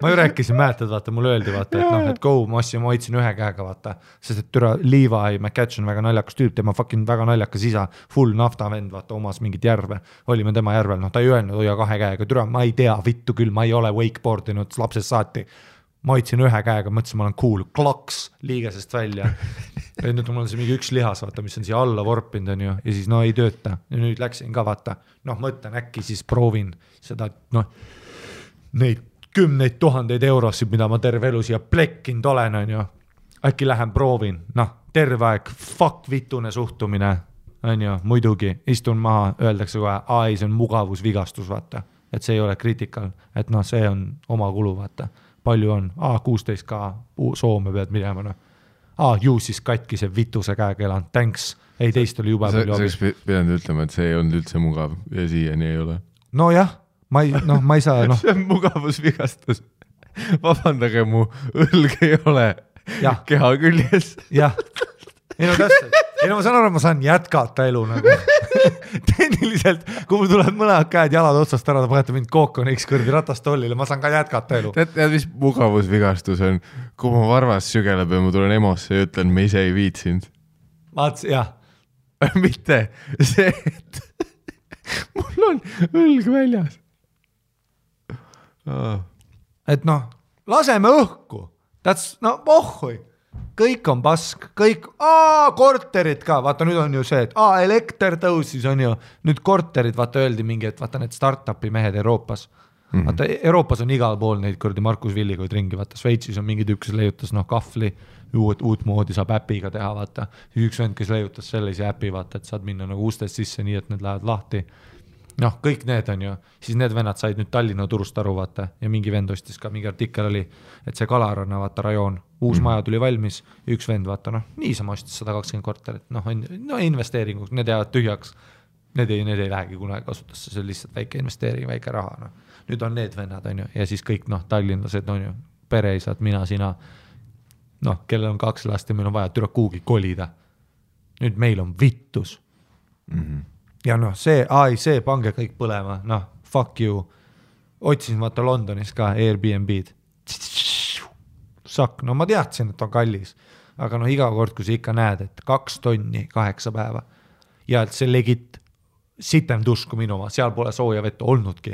Ma ju rääkisin, mäletad, vaata, mulle öeldi, vaata, et noh, et go, ma hoidsin ühe käega, vaata, sest et türa Levi McCatch on väga naljakas tüüp, tema fucking väga naljakas isa, full naftavend, vaata, omas mingit järve, olime tema järvel, noh, ta ei öelnud, hoia 2 käega, türa, ma ei tea, vittu küll, ma ei ole wakeboardinud lapsest saati, ma hoidsin ühe käega, mõtlesin, ma olen cool, kloks liigesest välja, ja nüüd mul on see mingi üks lihas, vaata, mis on siia alla vorpinud, on ju, ja siis no ei tööta, ja nüüd läksin ka, vaata, noh, mõtlen, äkki siis proovin seda, noh, neid 10 000 eurosid, mida ma terve elu siia plekkinud olen, on ju. Äkki lähen proovin, noh, terve aeg, fuck vitune suhtumine, on ju, muidugi, istun maha, öeldakse kohe, see on mugavusvigastus, vaata, et see ei ole kriitikal, et noh, see on oma kulu, vaata, palju on, 16K, Soome pead minema, noh, ju siis katki see vituse käega elan, thanks, ei teist oli juba palju abi. Sa pidanud ütlema, et see ei olnud üldse mugav ja siiani ei ole. No jah. Ma ei saa, noh. See on mugavusvigastus. Vabandage, mu õlg ei ole keha küljes. Jah. Ei no täpselt. Ei no ma saan aru, ma saan jätkata elu nagu. Tehniliselt, kui mul tulevad mõlemad käed jalad otsast ära, ta panete mind kookoniks kõrdi ratastollile, ma saan ka jätkata elu. Tead, mis mugavusvigastus on? Kui mu varvas sügeleb ja ma tulen emosse ja ütlen, me ise ei viitsinud. Jah. Mitte see, et mul on õlg väljas. Et noh, laseme õhku, no pohhui, kõik on pask, kõik, korterid ka, vaata nüüd on ju see, et elekter tõusis on ju, nüüd korterid, vaata öeldi mingi, et vaata need start-upi mehed Euroopas, vaata Euroopas on igal pool neid kurdi Markus Villikoid ringi, vaata Šveitsis on mingi tükk, kes leiutas kahvli, uut moodi saab äpiga teha, vaata, üks vend, kes leiutas sellise äpi, vaata, et saad minna nagu ustest sisse nii, et need lähevad lahti. Noh, kõik need on ju, siis need vennad said nüüd Tallinna turust aru, vaata, ja mingi vend ostis ka, mingi artikkel oli, et see Kalaranna, vaata, rajoon, uus maja tuli valmis, üks vend, vaata, noh, niisama ostis 120 korterit, noh, investeeringuks, need jäävad tühjaks, need ei lähegi kunagi kasutusse, see on lihtsalt väike investeering, väike raha, noh. Nüüd on need vennad, on ju, ja siis kõik, noh, tallinlased, on ju, pereisad, mina, sina, noh, kellel on 2 last ja meil on vaja türa kuugi kolida. Nüüd meil on vittus. Ja noh, see, pange kõik põlema, noh, fuck you. Otsin vaata Londonis ka Airbnb-d. Sakk, no ma teadsin, et on kallis, aga noh, iga kord, kui sa ikka näed, et 2 tonni 8 päeva ja et see legit sitem duš kui minu oma, seal pole sooja vett olnudki.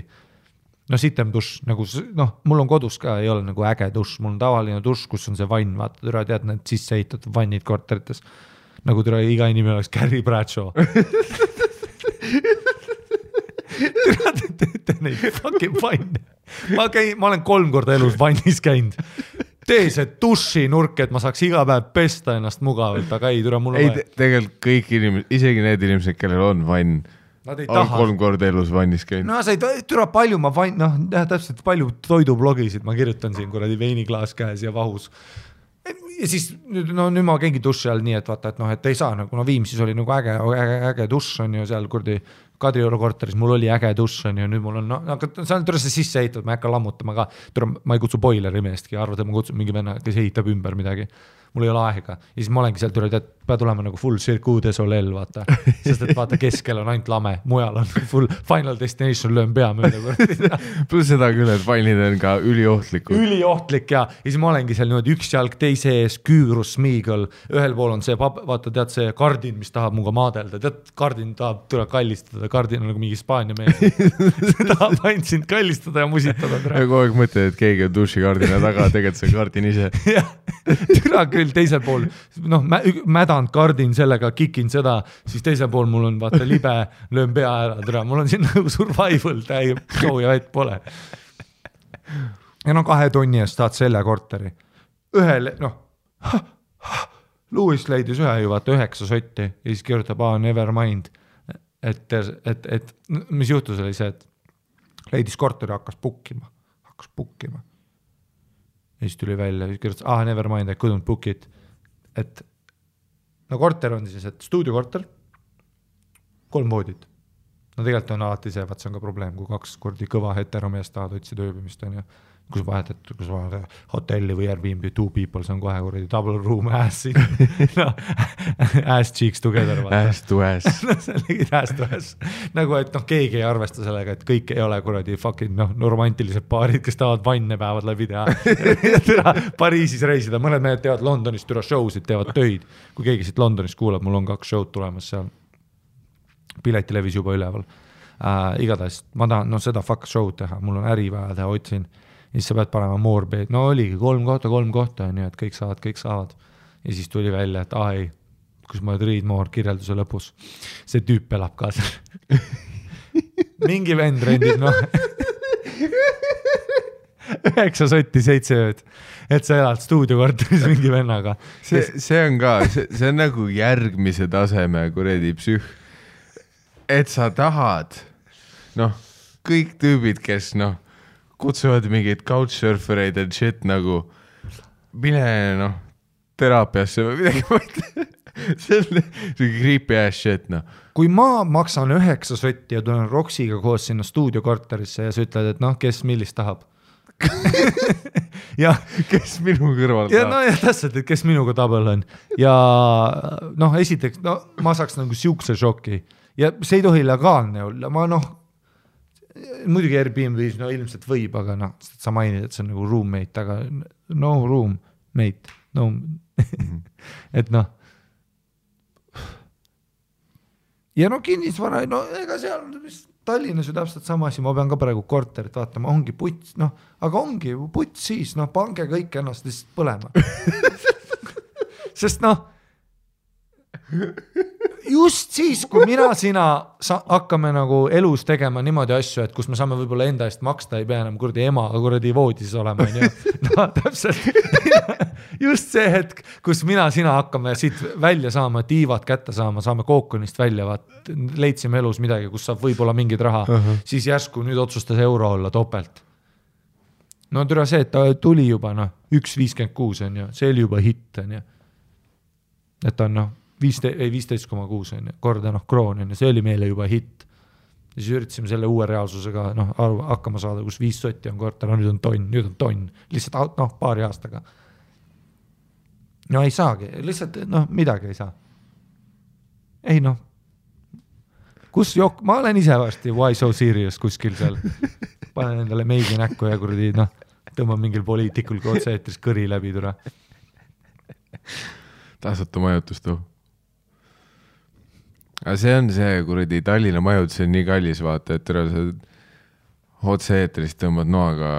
No sitem duš, nagu, noh, mul on kodus ka, ei ole nagu äge duš, mul on tavaline duš, kus on see vann, vaata, türa tead, need sisse ehitatud vannid korterites, nagu türa iga inimene oleks Carrie Bradshaw. Teete neid fucking vanne. Ma olen 3 korda elus vannis käinud. Tee see duši nurk, et ma saaks iga päev pesta ennast mugavalt, aga ei, türa mul on vaja. Tegelikult kõik inimesed, isegi need inimesed, kellel on vann, on 3 korda elus vannis käinud. No sa ei türa palju, ma vann, noh, täpselt palju toidublogisid, ma kirjutan siin kuradi veiniklaas käes ja vahus. Ja siis nüüd ma käingi duši all nii, et vaata, et noh, et ei saa, nagu Viimsis oli nagu äge duš on ju seal kurdi Kadrioru korteris, mul oli äge duš on ju, nüüd mul on, aga see on türa see sisse ehitatud, ma ei hakka lammutama ka, ma ei kutsu boileri meestki, arvad, et ma kutsun mingi venna, kes ehitab ümber midagi, mul ei ole aega, ja siis ma olengi seal türa, et pead olema nagu full circuit de soleil, vaata, sest et vaata keskel on ainult lame, mujal on full Final Destination, löön pea mööda. Plus seda küll, et vannid on ka üliohtlikud. Üliohtlik ja siis ma olengi seal niimoodi üks jalg teise ees, küürus, smiigel, ühel pool on see, vaata, tead see kardin, mis tahab muga maadelda, tead, kardin tahab tule kallistada, kardin on nagu mingi Hispaania mees. See tahab ainult sind kallistada ja musitada. Ja kogu aeg mõtled, et keegi on dušikardina taga, tegelikult see kardin ise. Türa küll teisel pool, noh, mädanud kardin sellega, kikin seda, siis teisel pool mul on vaata libe, löön pea ära, türa, mul on siin nagu survival, täie sooja vett pole. Ja no 2 tonni eest saad selle korteri. Ühel, noh, Lewis leidis ühe ju vaata 9 sotti ja siis kirjutab, never mind. Et mis juhtus oli see, et leidis korteri, hakkas pukkima. Ja siis tuli välja, siis kirjutas, never mind, I couldn't book it. Et no korter on siis, et stuudiokorter, 3 voodit. No tegelikult on alati see, vaat see on ka probleem, kui 2 kordi kõva heteromees tahad otsida ööbimist, on ju. Kus vahetad hotelli või Airbnb, 2 people, see on kohe kuradi double room ass no, ass cheeks together. Ass to ass. Ass to ass. Nagu, et keegi ei arvesta sellega, et kõik ei ole kuradi fucking romantilised paarid, kes tahavad vanne päevad läbi teha. Pariisis reisida, mõned mehed teevad Londonis türa showsid, teevad töid. Kui keegi siit Londonis kuulab, mul on 2 show'd tulemas seal. Piletilevis juba üleval. Igatahes, ma tahan seda fuck show'd teha, mul on äri vaja teha, otsin. Ja siis sa pead panema moorbed, no oligi 3 kohta, nii et kõik saavad. Ja siis tuli välja, et ei, kus ma read more kirjelduse lõpus. See tüüp elab ka seal. Mingi vend rendib, 9 sotti 7 ööd, et sa elad stuudiokorteris mingi vennaga. See on ka, see on nagu järgmise taseme kuredi psüh. Et sa tahad, kõik tüübid, kes kutsuvad mingid couchsurfereid and shit nagu mine teraapiasse või midagi mõtle. See on creepy ass shit. Kui ma maksan 9 sotti ja tulen Roksiga koos sinna stuudiokorterisse ja sa ütled, et kes millist tahab. Ja kes minu kõrval tahab. Ja täpselt, et kes minuga tabel on. Ja esiteks, ma saaks nagu siukse šoki. Ja see ei tohi legaalne olla. Ma muidugi Airbnb-s ilmselt võib, aga sa mainid, et see on nagu roommate, aga no roommate, no et ja kinnisvara, ega seal Tallinnas ju täpselt sama asi, ma pean ka praegu korterit vaatama, ongi puts, aga ongi puts siis, pange kõik ennast lihtsalt põlema. Sest just siis, kui sina hakkame nagu elus tegema niimoodi asju, et kus me saame võib-olla enda eest maksta, ei pea enam kuradi emaga kuradi voodis olema. Täpselt. Just see hetk, kus sina hakkame siit välja saama, tiivad kätte saama, saame kookonist välja, leidsime elus midagi, kus saab võib-olla mingid raha, siis järsku nüüd otsustas euro olla topelt. No türa see, et ta tuli juba 1.56 on ju, see oli juba hitt on ju. Et on 15,6 on korda kroon on ja see oli meile juba hitt. Ja siis üritasime selle uue reaalsusega hakkama saada, kus 5 sotti on korter, nüüd on tonn, lihtsalt paari aastaga. No ei saagi, lihtsalt midagi ei saa. Ei kus ma olen ise varsti Why So Serious kuskil seal, panen endale meigi näkku ja kuradi tõmban mingil poliitikul kui otse-eetris kõri läbi tule. Tasuta majutust Aga see on see kuradi Tallinna majutus on nii kallis vaata, et sa otse-eetrist tõmbad noaga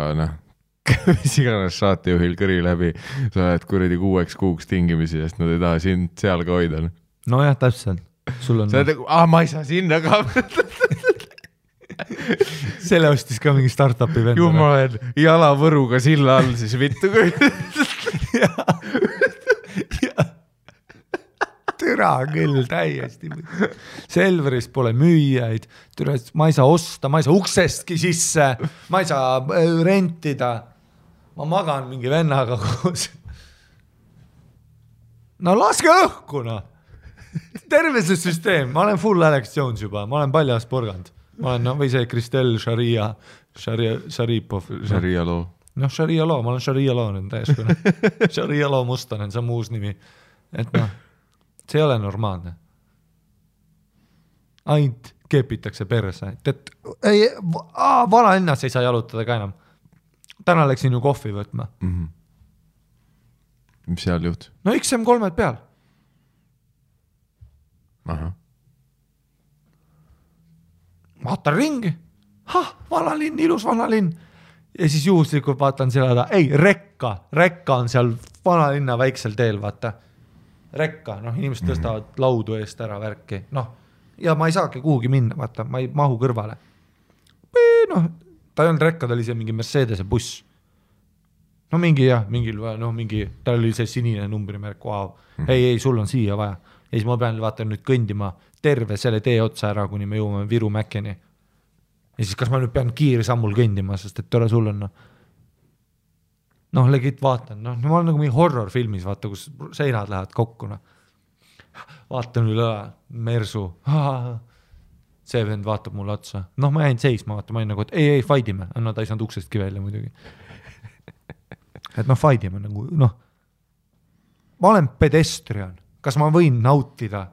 mis iganes saatejuhil kõri läbi, sa oled kuradi 6 kuuks tingimisi, sest nad ei taha sind seal ka hoida. No jah, täpselt. Sul on... Sa oled, ma ei saa sinna ka. Selle ostis ka mingi startupi vend. Ju ma olen jalavõruga silla all, siis vittu kui... Türa küll, täiesti. Selveris pole müüjaid, ma ei saa osta, ma ei saa uksestki sisse, ma ei saa rentida. Ma magan mingi vennaga koos. No laske õhku, Terve see süsteem, ma olen full Alex Jones juba, ma olen paljas porgand. Ma olen, või see Kristel Šaripov. Sharia loo. Sharia loo, ma olen Sharia loo nüüd täieskune. Sharia loo Mustanen, see on muus nimi. Et see ei ole normaalne. Ainult kepitakse perse. Vanalinnas ei saa jalutada ka enam. Täna läksin ju kohvi võtma. Mis seal juht? No XM3 peal. Aha. Vaatan ringi. Vanalinn, ilus vanalinn. Ja siis juhuslikult vaatan seda, rekka on seal vanalinna väiksel teel, vaata. Rekka, inimesed tõstavad laudu eest ära värki, ja ma ei saagi kuhugi minna, vaata, ma ei mahu kõrvale. Ta ei olnud rekka, ta oli see mingi Mercedese buss. no mingi jah, mingi, tal oli see sinine numbrimärk, wow. ei, sul on siia vaja. Ja siis ma pean vaata nüüd kõndima terve selle tee otsa ära, kuni me jõuame Viru Mäkkeni. Ja siis kas ma nüüd pean kiirsammul kõndima, sest et tore sul on, noh, legit vaatan, noh, ma olen nagu mingi horror-filmis, vaata, kus seinad lähevad kokku, noh. Vaatan üle Mersu, see vend vaatab mulle otsa, noh, ma jäin seisma, vaata, ma jäin nagu, et ei, faidime, no ta ei saanud uksestki välja muidugi. Et noh, faidime nagu, noh, ma olen pedestrian, kas ma võin nautida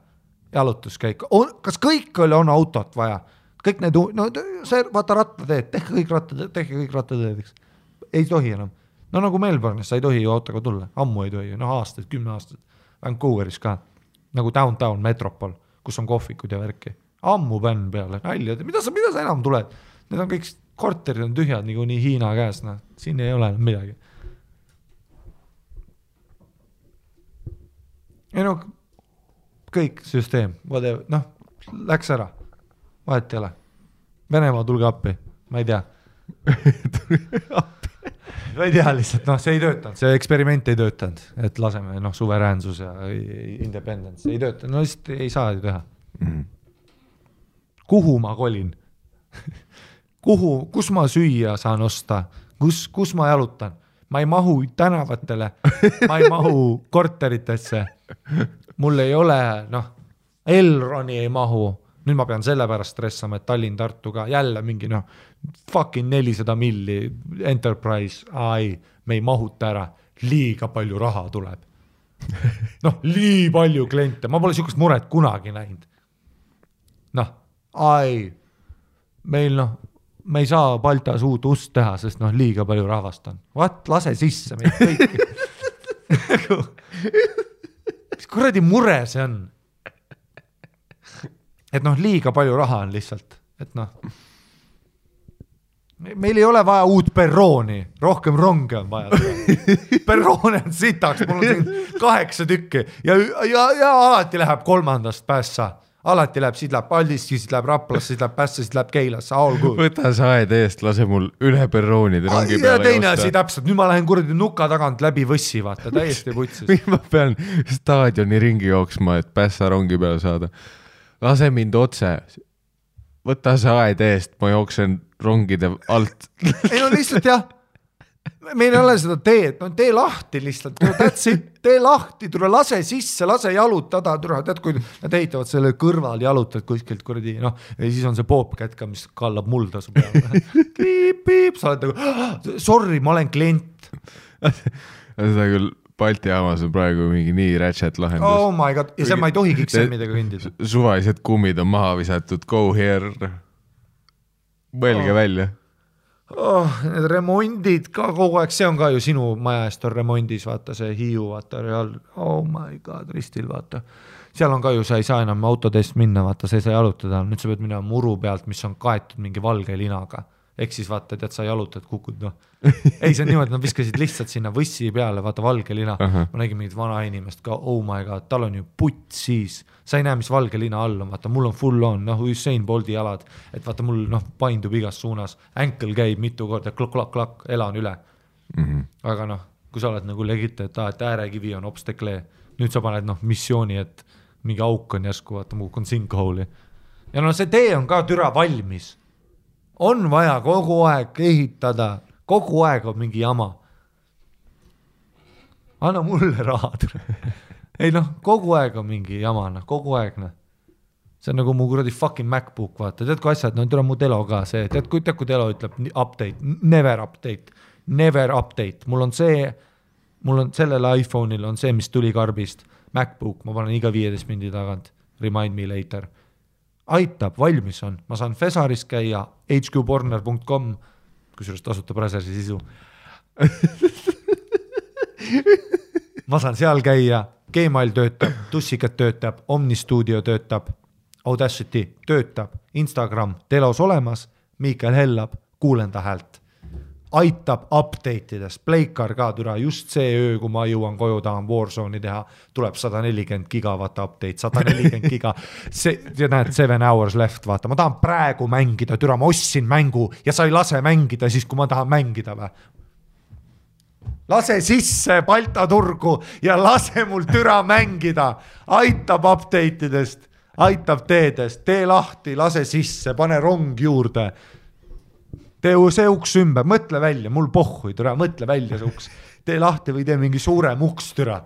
jalutuskäiku, kas kõikjal on autot vaja, kõik need, no see, vaata rattateed, tehke kõik rattateed, ei tohi enam. No nagu Melbourne'is, sa ei tohi ju autoga tulla, ammu ei tohi, noh aastaid, 10 aastaid, Vancouveris ka, nagu downtown metropol, kus on kohvikud ja värki, ammu bänn peale, nalja, mida sa enam tuled, need on kõik korterid on tühjad, nagu nii Hiina käes, noh, siin ei ole enam midagi. Ei no, kõik süsteem, noh, läks ära, vahet ei ole. Venemaa tulge appi, ma ei tea. Ma ei tea lihtsalt, noh, see ei töötanud, see eksperiment ei töötanud, et laseme, noh, suveräänsus ja independence ei töötanud, no lihtsalt ei saa ju teha. Kuhu ma kolin? Kus ma süüa saan osta? Kus ma jalutan? Ma ei mahu tänavatele, ma ei mahu korteritesse, mul ei ole, noh, Elroni ei mahu, nüüd ma pean selle pärast stressama, et Tallinn-Tartuga jälle mingi, noh, fucking 400 milli Enterprise, me ei mahuta ära, liiga palju raha tuleb. Noh, nii palju kliente, ma pole sihukest muret kunagi näinud. Noh, meil noh, me ei saa Baltas uut ust teha, sest noh, liiga palju rahvast on. Lase sisse meid kõiki. Mis kuradi mure see on? Et noh, liiga palju raha on lihtsalt, et noh, meil ei ole vaja uut perrooni, rohkem ronge on vaja. Perroone on sitaks, mul on siin 8 tükki ja alati läheb 3. päässa. Alati läheb, siit läheb Paldiski, siit läheb Raplasse, siit läheb Pässe, siit läheb Keilasse, all good. Võta saed eest, lase mul üle perroonide rongi peale ja teine asi täpselt, nüüd ma lähen kuradi nuka tagant läbi võssi, vaata, täiesti putsis. Ma pean staadioni ringi jooksma, et Pässa rongi peale saada. Lase mind otse, võta saed eest, ma jooksen rongide alt. Ei no lihtsalt jah, meil ei ole seda teed, no tee lahti lihtsalt, tee lahti, tule lase sisse, lase jalutada, tead kui nad ehitavad selle kõrval jalutad kuskilt kuradi, noh, ja siis on see poopkätka, mis kallab mulda su peale. Piip, sa oled nagu, sorry, ma olen klient. Seda küll Balti jaamas on praegu mingi nii ratchet lahendus. Oh my god, ja see ma ei tohi kiksemidega kõndida. Suvalised kummid on maha visatud, go here, mõelge välja. Need remondid ka kogu aeg, see on ka ju sinu maja eest on remondis, vaata see Hiiu, vaata real, oh my god, ristil, vaata. Seal on ka ju, sa ei saa enam autodest minna, vaata, sa ei saa jalutada, nüüd sa pead minna muru pealt, mis on kaetud mingi valge linaga. Ehk siis vaata, tead, sa jalutad, kukud, noh. Ei, see on niimoodi, nad viskasid lihtsalt sinna võssi peale, vaata valge lina. Ma nägin mingit vana inimest ka, oh my god, tal on ju putt siis. Sa ei näe, mis valge lina all on, vaata, mul on full on, noh, Usain Bolti jalad, et vaata, mul noh, paindub igas suunas, ankle käib mitu korda, klak, elan üle. Aga noh, kui sa oled nagu legit, et äärekivi on obsteklee, nüüd sa paned noh, missiooni, et mingi auk on järsku, vaata, muu on sinkhole'i. Ja no see tee on ka türa valmis. On vaja kogu aeg ehitada, kogu aeg on mingi jama. Anna mulle raha. Ei noh, kogu aeg on mingi jama, noh, kogu aeg, noh. See on nagu mu kuradi fucking MacBook, vaata. Tead kui asjad, no tule mu Telo ka see. Tead kui Telo ütleb update, never update. Mul on sellel iPhone'il on see, mis tuli karbist. MacBook, ma panen iga 15 mindi tagant. Remind me later. Aitab, valmis on. Ma saan Fesaris käia, hqporner.com, kusjuures tasuta Brasersi sisu. Ma saan seal käia, Gmail töötab, Tussikat töötab, Omnistudio töötab, Audacity töötab, Instagram telos olemas, Miikael Hellab, kuulen ta häält. Aitab update'ides, Pleikar ka türa, just see öö, kui ma jõuan koju, tahan Warzone'i teha, tuleb 140 gigawatt update, 140 giga, ja näed, 7 hours left, vaata, ma tahan praegu mängida, türa, ma ostsin mängu ja sa ei lase mängida siis, kui ma tahan mängida või? lase sisse Balta turgu ja lase mul türa mängida, aitab update idest, aitab teedest, tee lahti, lase sisse, pane rong juurde, tee see uks ümber, mõtle välja, mul pohhui türa, mõtle välja see uks, tee lahti või tee mingi suurem uks türa.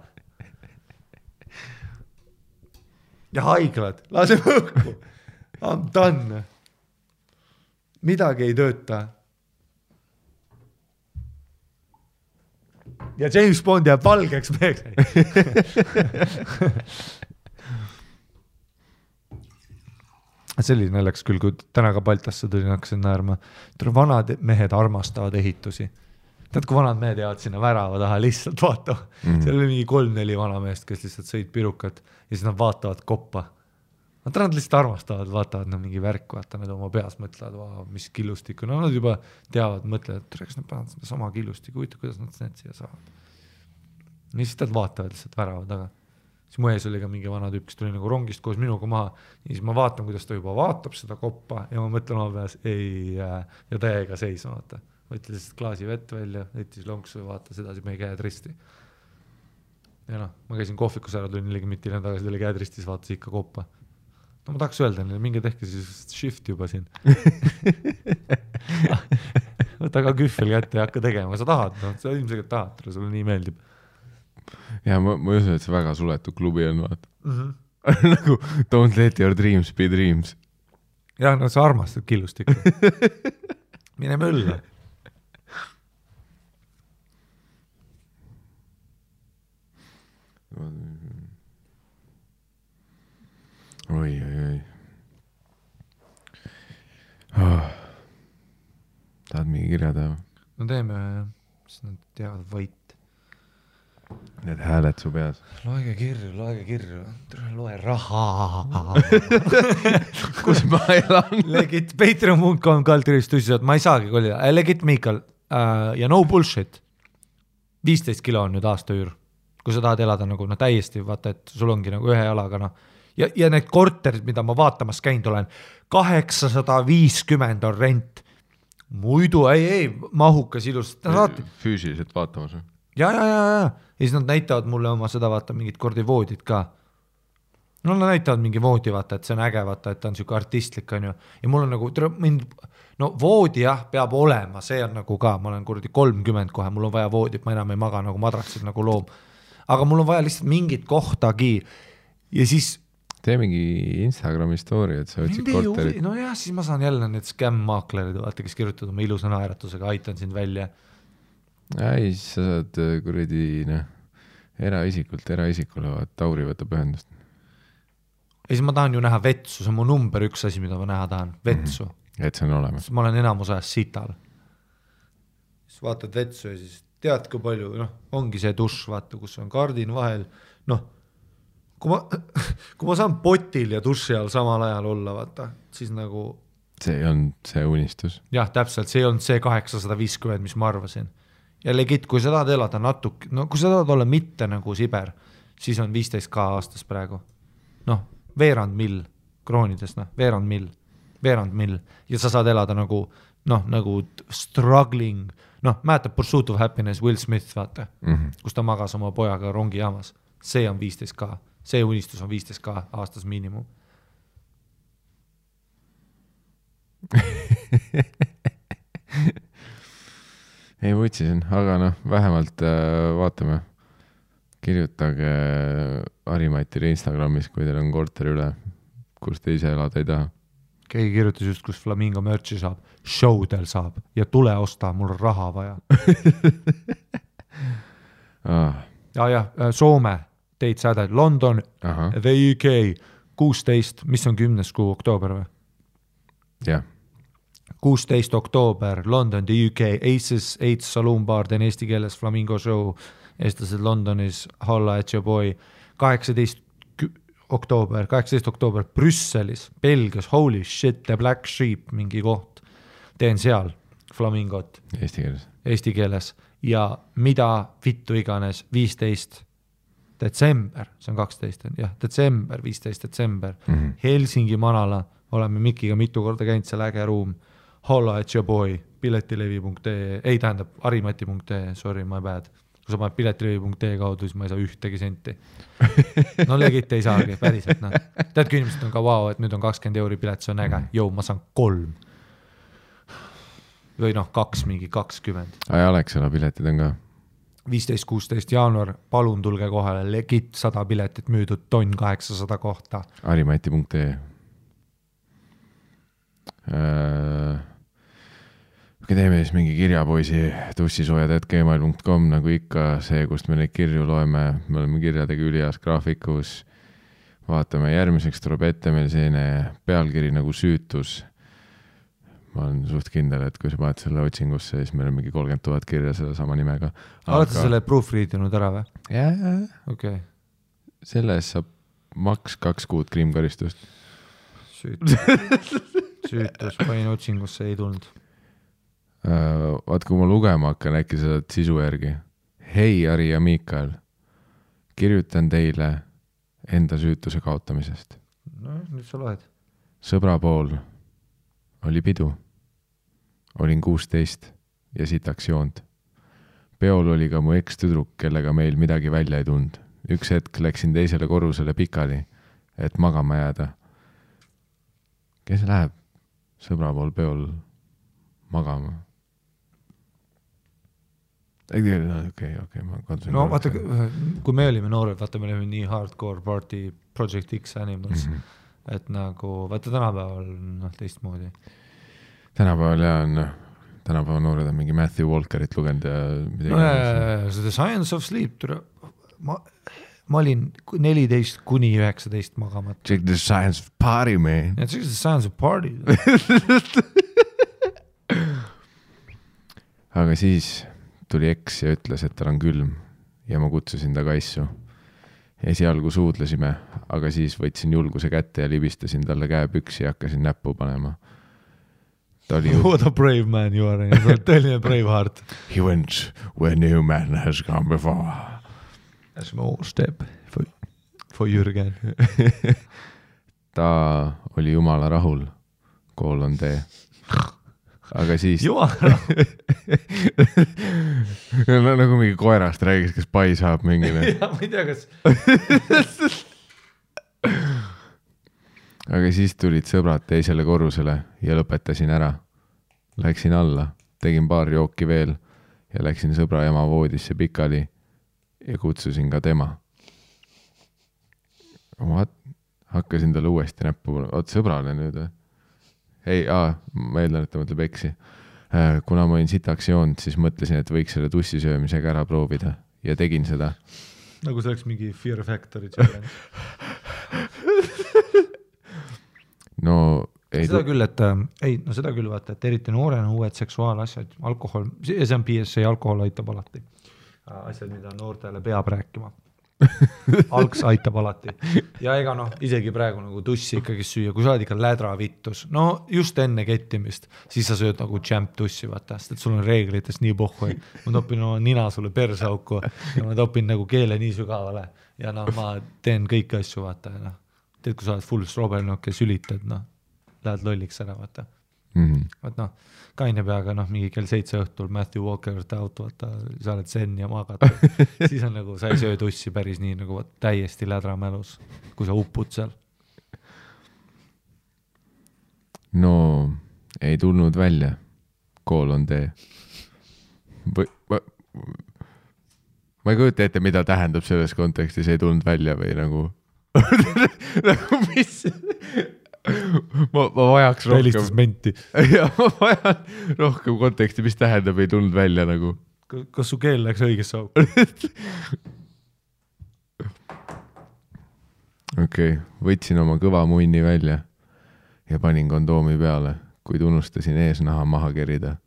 Ja haiglad, lase õhku, I'm done, midagi ei tööta. Ja James Bond jääb valgeks meheks. See oli naljakas küll, kui täna ka Baltasse tulin, hakkasin naerma. Vanad mehed armastavad ehitusi. Tead, kui vanad mehed jäävad sinna värava taha, lihtsalt vaatavad. Seal oli mingi 3-4 vanameest, kes lihtsalt sõid pirukat ja siis nad vaatavad koppa. Nad lihtsalt armastavad, vaatavad mingi värk, vaata nad oma peas mõtlevad, mis killustikku. No nad juba teavad, mõtlevad, et kas nad peavad seda sama killustikku, kuidas nad need siia saavad. Ja siis nad vaatavad lihtsalt värava taga. Siis mu ees oli ka mingi vana tüüp, kes tuli nagu rongist koos minuga maha. Ja siis ma vaatan, kuidas ta juba vaatab seda koppa ja ma mõtlen oma peas, ei, ja täiega seisma, vaata. Võttis lihtsalt klaasi vett välja, võttis lonksu ja vaatas edasi meie käed risti. Ja noh, ma käisin kohvikus ära, tulin 40 tagasi, ta oli käed ristis, vaatas ikka koppa. No ma tahaks öelda, minge tehke siis shift juba siin. Võta ka kühvel kätte ja hakka tegema, sa tahad, no, sa ilmselt tahad, sulle nii meeldib. Ja ma usun, et see väga suletud klubi on, vaata. Nagu don't let your dreams be dreams. Ja, no sa armastad killustikku. Mine mölla. Oi. Oh. Tahad mingi kirja teha? No teeme, siis nad teavad võit. Need hääled su peas. Loege kirju. Loe raha. Kus ma elan? Legit Patreon.com kaltirist tõsiselt, ma ei saagi kolida. Legit Miikal ja no bullshit. 15 kilo on nüüd aasta üür. Kui sa tahad elada nagu täiesti, vaata, et sul ongi nagu ühe jalaga. Ja need korterid, mida ma vaatamas käinud olen, 850 on rent. Muidu ei, mahukas ilus. Füüsiliselt vaatamas või? Ja siis nad näitavad mulle oma seda, vaata, mingid kordi voodid ka. No nad näitavad mingi voodi, vaata, et see on äge, vaata, et ta on siuke artistlik, on ju. Ja mul on nagu, no voodi jah, peab olema, see on nagu ka, ma olen kuradi 30 kohe, mul on vaja voodit, ma enam ei maga nagu madratsid nagu loom. Aga mul on vaja lihtsalt mingit kohtagi. Ja siis tee mingi Instagrami story, et sa võtsid korterit. No jah, siis ma saan jälle need scam-maaklerid, vaata, kes kirjutavad oma ilusa naeratusega, aitan sind välja. Ei, siis sa saad kuradi eraisikule, vaat Tauri võtab ühendust. Ja siis ma tahan ju näha vetsu, see on mu number 1 asi, mida ma näha tahan, vetsu. Et see on olemas. Ma olen enamus ajast sital. Siis vaatad vetsu ja siis tead, kui palju, ongi see duš, vaata, kus on kardin vahel, kui ma saan potil ja duši all samal ajal olla, vaata, siis nagu see on see unistus. Jah, täpselt, see on see 850, mis ma arvasin. Ja legit, kui sa tahad elada natuke, kui sa tahad olla mitte nagu Siber, siis on 15K aastas praegu. Veerand mill kroonides, veerand mill. Ja sa saad elada nagu struggling, mäletab Pursuit of Happiness, Will Smith, vaata, kus ta magas oma pojaga rongijaamas. See on 15K, see unistus on 15K aastas miinimum. Ei võtsisin, aga vähemalt vaatame. Kirjutage Harimatile Instagramis, kui teil on korter üle, kus te ise elada ei taha. Keegi kirjutas just, kus Flamingo merchi saab. Showdel saab ja tule osta, mul on raha vaja. Soome, teid säded, London, the UK, 16, mis on 10. kuu oktoober või? Jah. 16 oktoober, London, the UK, Aces, 8 Saloon Bar, teen eesti keeles Flamingo show, eestlased Londonis, holla at your boy, 18 oktoober, Brüsselis, Belgias, holy shit, the Black Sheep, mingi koht, teen seal Flamingot. Eesti keeles. Ja mida vittu iganes, 15 detsember, see on 12, jah, detsember, 15 detsember, Helsingi Manala, oleme Mikiga mitu korda käinud, seal äge ruum, holla at your boy, piletilevi.ee, ei tähendab, harimati.ee, sorry, my bad, kui sa paned piletilõvi.ee kaudu, siis ma ei saa ühtegi senti. No legit ei saagi, päriselt, noh. Tead, kui inimesed on ka vau, et nüüd on 20 € pilet, see on äge. Jou, ma saan 3. Või noh, 2 mingi 20. Ai, Alexela piletid on ka. 15-16 jaanuar, palun tulge kohale, legit 100 piletit müüdud, tonn 800 kohta. Harimati.ee teeme siis mingi kirjapoisi tussisoojad@gmail.com nagu ikka see, kust me neid kirju loeme, me oleme kirjadega ülias graafikus, vaatame järgmiseks tuleb ette meil selline pealkiri nagu süütus. Ma olen suht kindel, et kui sa paned selle otsingusse, siis meil on mingi 30 000 kirja selle sama nimega. Oled sa selle proofreadinud ära või? Jaa. Okay. Selles saab maks 2 kuud kriimkaristust. Süütus, panin otsingusse, ei tulnud. Vaat kui ma lugema hakkan, äkki sa saad sisu järgi. Hei, Ari ja Miikael, kirjutan teile enda süütuse kaotamisest. No, nüüd sa loed. Sõbra pool oli pidu. Olin 16 ja sitaks joond. Peol oli ka mu ekstüdruk, kellega meil midagi välja ei tund. Üks hetk läksin teisele korrusele pikali, et magama jääda. Kes läheb sõbra pool peol magama? Okei, ma katsun. No vaata, kui me olime noored, vaata, me olime nii hardcore party Project X Animals, et nagu, vaata tänapäeval noh, teistmoodi. Tänapäeval noored on mingi Matthew Walkerit lugenud ja midagi. The Science of Sleep, ma olin 14 kuni 19 magamat. Check the science of party, man. Yeah, check the science of party. Aga siis tuli eks ja ütles, et tal on külm ja ma kutsusin ta kaissu. Esialgu suudlesime, aga siis võtsin julguse kätte ja libistasin talle käepüksi ja hakkasin näppu panema. What a brave man you are. Tõeline brave heart. He went where no man has gone before. A small step for Jürgen. Ta oli jumala rahul. Kool on tee. Aga siis no, nagu mingi koerast räägis, kes pai saab mingile. Ja, ma ei tea, kas aga siis tulid sõbrad teisele korrusele ja lõpetasin ära. Läksin alla, tegin paar jooki veel ja läksin sõbra ema voodisse pikali ja kutsusin ka tema. Hakkasin talle uuesti näppu. Oot, sõbrale nüüd või? Ei, ma eeldan, et ta mõtleb eksi. Kuna ma olin sitaks joond, siis mõtlesin, et võiks selle tussisöömisega ära proovida ja tegin seda. Nagu see oleks mingi Fear Factory challenge. No, seda küll, seda küll vaata, et eriti noorena uued seksuaalasjad, alkohol, see on PSA, alkohol aitab alati. Asjad, mida noortele peab rääkima. Alks aitab alati. Ja ega noh, isegi praegu nagu tussi ikkagi süüa, kui sa oled ikka lädra vittus, no just enne kettimist, siis sa sööd nagu champ tussi, vaata, sest et sul on reeglitest nii pohhu, ma topin oma nina sulle persauku ja ma topin nagu keele nii sügavale ja noh, ma teen kõiki asju, vaata, ja noh, teed, kui sa oled full strobelnok ja sülitad, noh, lähed lolliks ära, vaata. Vaat noh, kaine peaga noh, mingi kell 7 õhtul Matthew Walker out, vaata, sa oled sen ja magad. Siis on nagu, sa ei söö tussi päris nii nagu täiesti lädramälus, kui sa uppud seal. No, ei tulnud välja. Kool on tee. Ma ei kujuta ette, mida tähendab selles kontekstis, ei tulnud välja või nagu nagu mis... ma vajaks rohkem ja ma vajan rohkem konteksti, mis tähendab ei tulnud välja nagu. Kas su keel läks õigesse auku? Okei, võtsin oma kõva munni välja ja panin kondoomi peale, kuid unustasin eesnaha maha kerida.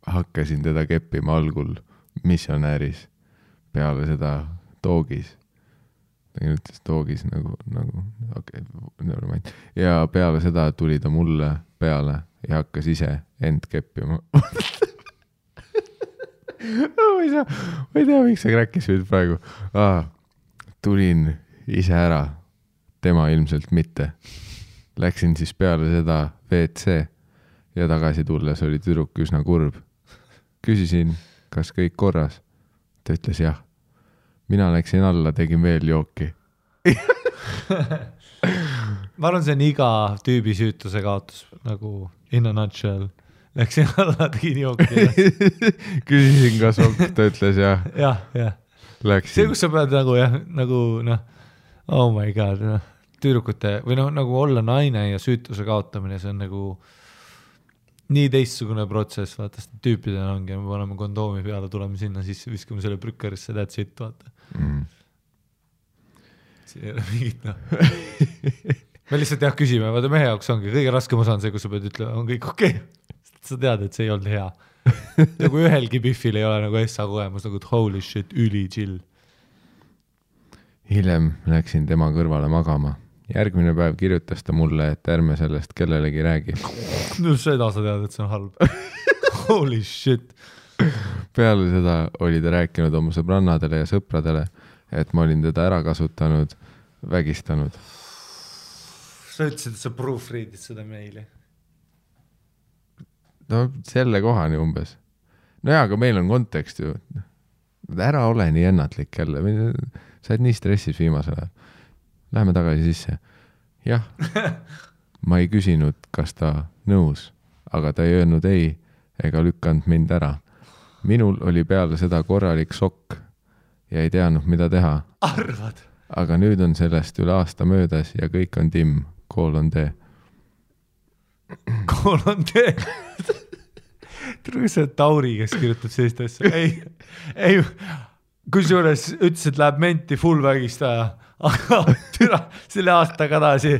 Hakkasin teda keppima algul missionääris, peale seda toogis. Ta ütles toogis nagu okay, ja peale seda tuli ta mulle peale ja hakkas ise end keppima. ma ei tea, miks sa kräkkis nüüd praegu. Tulin ise ära, tema ilmselt mitte. Läksin siis peale seda WC ja tagasi tulles oli tüdruk üsna kurb. Küsisin, kas kõik korras? Ta ütles jah. Mina läksin alla, tegin veel jooki. Ma arvan, see on iga tüübi süütuse kaotus, nagu in a nutshell. Läksin alla, tegin jooki. Küsisin ka sokk, ta ütles jah. jah. Läksin. See, kus sa pead nagu jah, nagu noh, oh my god, noh, tüürukute või noh, nagu olla naine ja süütuse kaotamine, see on nagu nii teistsugune protsess, vaata, sest tüüpidena ongi, me paneme kondoomi peale, tuleme sinna sisse, viskame selle prükkerisse, that's it, vaata. See ei ole mingit, noh. Me lihtsalt jah küsime, vaata mehe jaoks ongi, kõige raskem osa on see, kus sa pead ütlema, on kõik okei. Sa tead, et see ei olnud hea. Nagu ühelgi Biffil ei ole nagu essa kogemus, nagu holy shit, üli chill. Hiljem läksin tema kõrvale magama. Järgmine päev kirjutas ta mulle, et ärme sellest kellelegi räägi. No seda sa tead, et see on halb. Holy shit. Peale seda oli ta rääkinud oma sõbrannadele ja sõpradele, et ma olin teda ära kasutanud, vägistanud. Sa ütlesid, et sa proofreadid seda meili. No selle kohani umbes. No jaa, aga meil on kontekst ju. Ära ole nii ennatlik jälle. Sa oled nii stressis viimasel ajal. Läheme tagasi sisse. Jah, ma ei küsinud, kas ta nõus, aga ta ei öelnud ei ega lükkanud mind ära. Minul oli peale seda korralik šokk ja ei teadnud, mida teha. Arvad? Aga nüüd on sellest üle aasta möödas ja kõik on timm. Kool on tee. Kool on tee. Tule see Tauri, kes kirjutab sellist asja. Ei, kusjuures ütles, et läheb menti full vägistaja, aga türa selle aastaga tagasi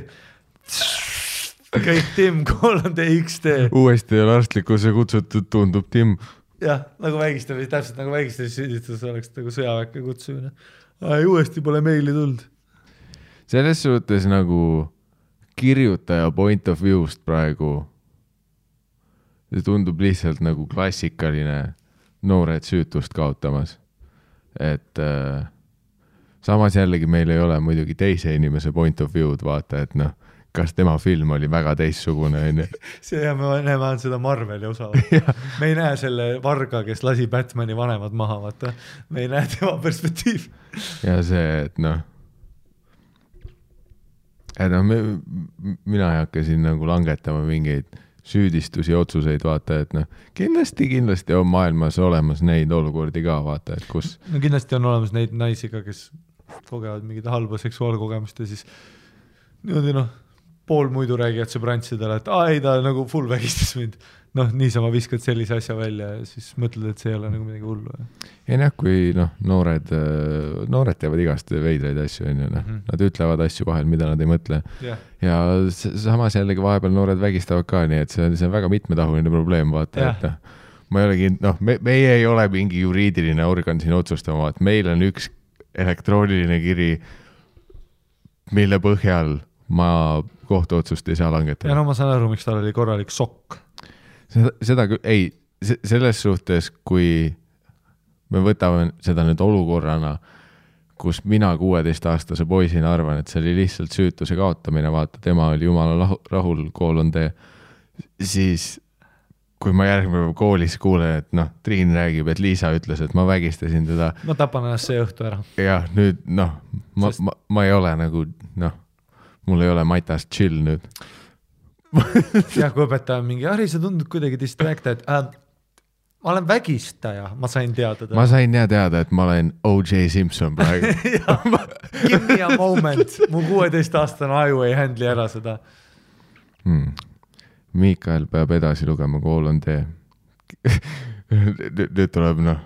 kõik timm, kool on tee XD. Uuesti ei ole arstlikkuse kutsutud, tundub timm. Jah, nagu vägistamis, täpselt nagu vägistamis süüdistus oleks nagu sõjaväkke kutsumine. Uuesti pole meili tuld. Selles suhtes nagu kirjutaja point of view'st praegu see tundub lihtsalt nagu klassikaline noored süütust kaotamas. Et samas jällegi meil ei ole muidugi teise inimese point of view'd vaata, et noh, kas tema film oli väga teissugune. See ja me näeme seda Marveli osa. Me ei näe selle varga, kes lasi Batmani vanemad maha, vaata. Me ei näe tema perspektiiv. Ja see, et noh, mina ei hakka siin nagu langetama mingeid süüdistusi, otsuseid, vaata, et noh, kindlasti on maailmas olemas neid olukordi ka, vaata, et kus... No kindlasti on olemas neid naisi ka, kes kogevad mingid halba seksuaalkogemust ja siis niimoodi noh, pool muidu räägijad sõbrantsidele, et ei, ta nagu full vägistas mind. Noh, niisama viskad sellise asja välja ja siis mõtled, et see ei ole nagu midagi hullu. Ei näh, kui noh, noored teevad igast veidraid asju, nad ütlevad asju vahel, mida nad ei mõtle. Ja samas jällegi vahepeal noored vägistavad ka, nii et see on väga mitmetahuline probleem, vaata, et ma ei olegi, noh, meie ei ole mingi juriidiline organ siin otsustama, et meil on üks elektrooniline kiri, mille põhjal ma kohtuotsust ei saa langetada. Ja no ma saan aru, miks tal oli korralik šokk. Seda küll, ei, selles suhtes, kui me võtame seda nüüd olukorrana, kus mina 16-aastase poisina arvan, et see oli lihtsalt süütuse kaotamine, vaata, tema oli jumala rahul, kool on tee, siis kui ma järgmine päev koolis kuulen, et noh, Triin räägib, et Liisa ütles, et ma vägistasin teda. Ma tapan ennast see õhtu ära. Ja nüüd, noh, ma ei ole nagu, noh, mul ei ole matast chill nüüd. Ja kui õpetaja mingi, Harri, sa tundud kuidagi distracted. Ma olen vägistaja, ma sain teada. Ma sain teada, et ma olen O.J. Simpson praegu. Give me a moment. Mu 16-aastane aju ei handli ära seda. Miikael peab edasi lugema, kool on tee. Nüüd tuleb, noh,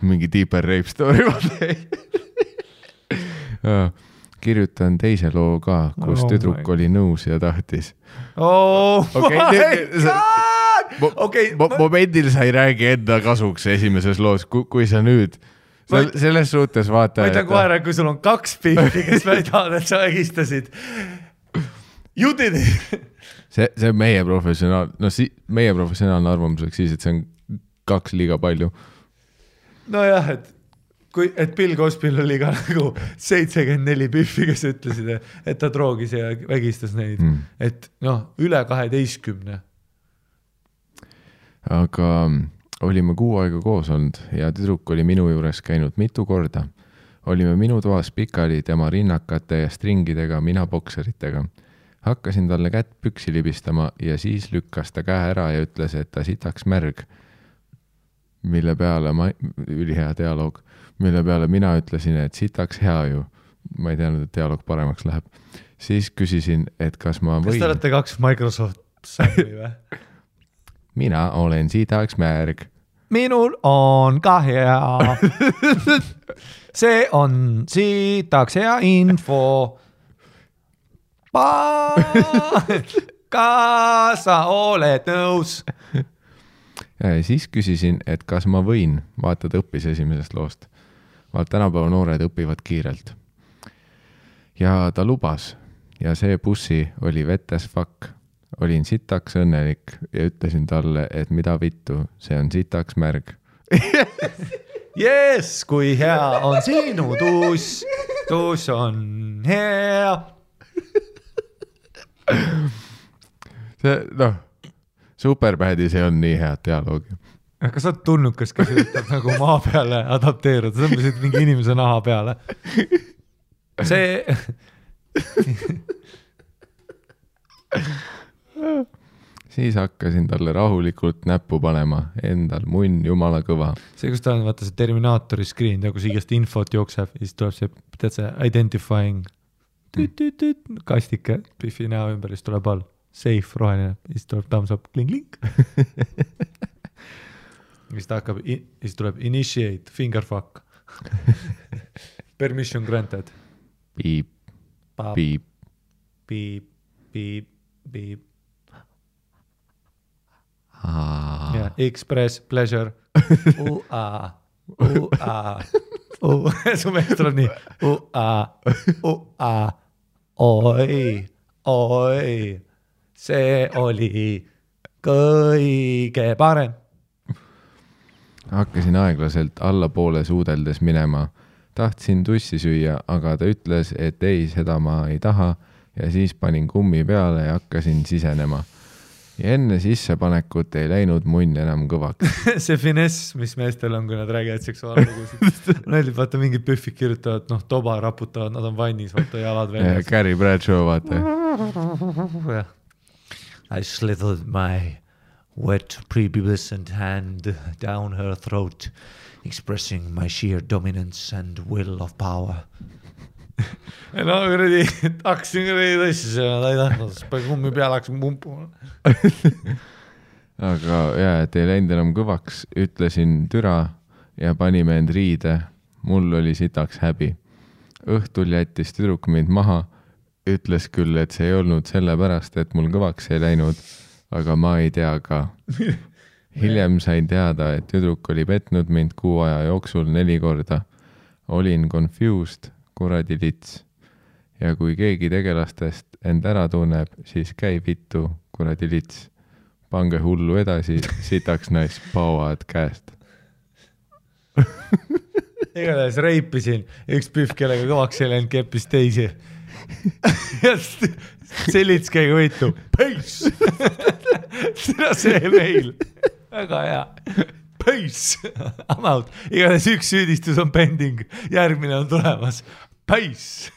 mingi deeper rape story. Kirjutan teise loo ka, kus tüdruk oli nõus ja tahtis. Oh my god! Momendil sa ei räägi enda kasuks esimeses loos, kui sa nüüd selles suhtes vaata... Ma ütlen kohe, kui sul on 2 pihti, kes väidavad, et sa vägistasid. You did it! See on meie professionaalne arvamuseks siis, et see on 2 liiga palju. Nojah, et Bill Cosby'l oli ka nagu 74 pühvi, kes ütlesid, et ta droogis ja vägistas neid. Et noh, üle 12. Aga olime 6 aega koos olnud ja tüdruk oli minu juures käinud mitu korda. Olime minu toas pikali tema rinnakate ja stringidega, mina bokseritega. Hakkasin talle kätt püksi libistama ja siis lükkas ta käe ära ja ütles, et ta sitaks märg. Mille peale ülihea dialoog, mille peale mina ütlesin, et sitaks hea ju. Ma ei teadnud, et dialoog paremaks läheb. Siis küsisin, et kas ma võin... Kas te olete 2 Microsoft sääli või? Mina olen sitaks märg. Minul on ka hea. See on sitaks hea info. Kas sa oled nõus? Siis küsisin, et kas ma võin, vaatad õppis esimesest loost. Tänapäeva noored õpivad kiirelt. Ja ta lubas ja see bussi oli wet as fuck. Olin sitaks õnnelik ja ütlesin talle, et mida vittu, see on sitaks märg. Yes, kui hea on sinu tuus. Tuus on hea. See, Superbadis ei on nii head dialoogi. Kas sa oled tulnukas, kes üritab nagu maa peale adapteeruda? Sa mõtlesid mingi inimese naha peale. See... Siis hakkasin talle rahulikult näppu panema, endal munn jumala kõva. See, kus ta on, vaata see Terminaatori screen, kus igast infot jookseb, siis tuleb see, tead see identifying kastike, Biffi näo ümber, siis tuleb all safe roheline, siis tuleb thumbs up, kling-kling. Siis ta hakkab, siis tuleb initiate, fingerfuck. Permission granted. Piip, piip. Piip, piip, piip. Yeah, express pleasure. U-a, u-a, su mees tuleb nii. U-a, u-a, oi, oi, see oli kõige parem. Hakkasin aeglaselt allapoole suudeldes minema. Tahtsin tussi süüa, aga ta ütles, et ei, seda ma ei taha ja siis panin kummi peale ja hakkasin sisenema. Ja enne sissepanekut ei läinud munn enam kõvaks. See finess, mis meestel on, kui nad räägivad seksuaallugusid. Näidib, vaata, mingid püffid kirjutavad, toba raputavad, nad on vannis, vaata jalad väljas. Gary Bradshaw, vaata. I slithered my wet prepubescent hand down her throat, expressing my sheer dominance and will of power. No, hakkasin tõssi, ta ei tahtnud, kummi peale hakkasin pumpuma. Aga et ei läinud enam kõvaks, ütlesin türa ja panime end riide. Mul oli sitaks häbi. Õhtul jättis tüdruk mind maha, ütles küll, et see ei olnud sellepärast, et mul kõvaks ei läinud, aga ma ei tea ka. Hiljem sain teada, et tüdruk oli petnud mind 6 aja jooksul 4 korda. Olin confused, kuradi lits. Ja kui keegi tegelastest end ära tunneb, siis käi vittu, kuradi lits. Pange hullu edasi, sitaks nais pauad käest. Igatahes reipisin, üks pühv, kellega kõvaks ei läinud, keppis teisi. Ja see lits käiga võitu. Peace! Seda see meil. Väga hea. Peace! I'm out. Igatahes üks süüdistus on pending. Järgmine on tulemas. Peace!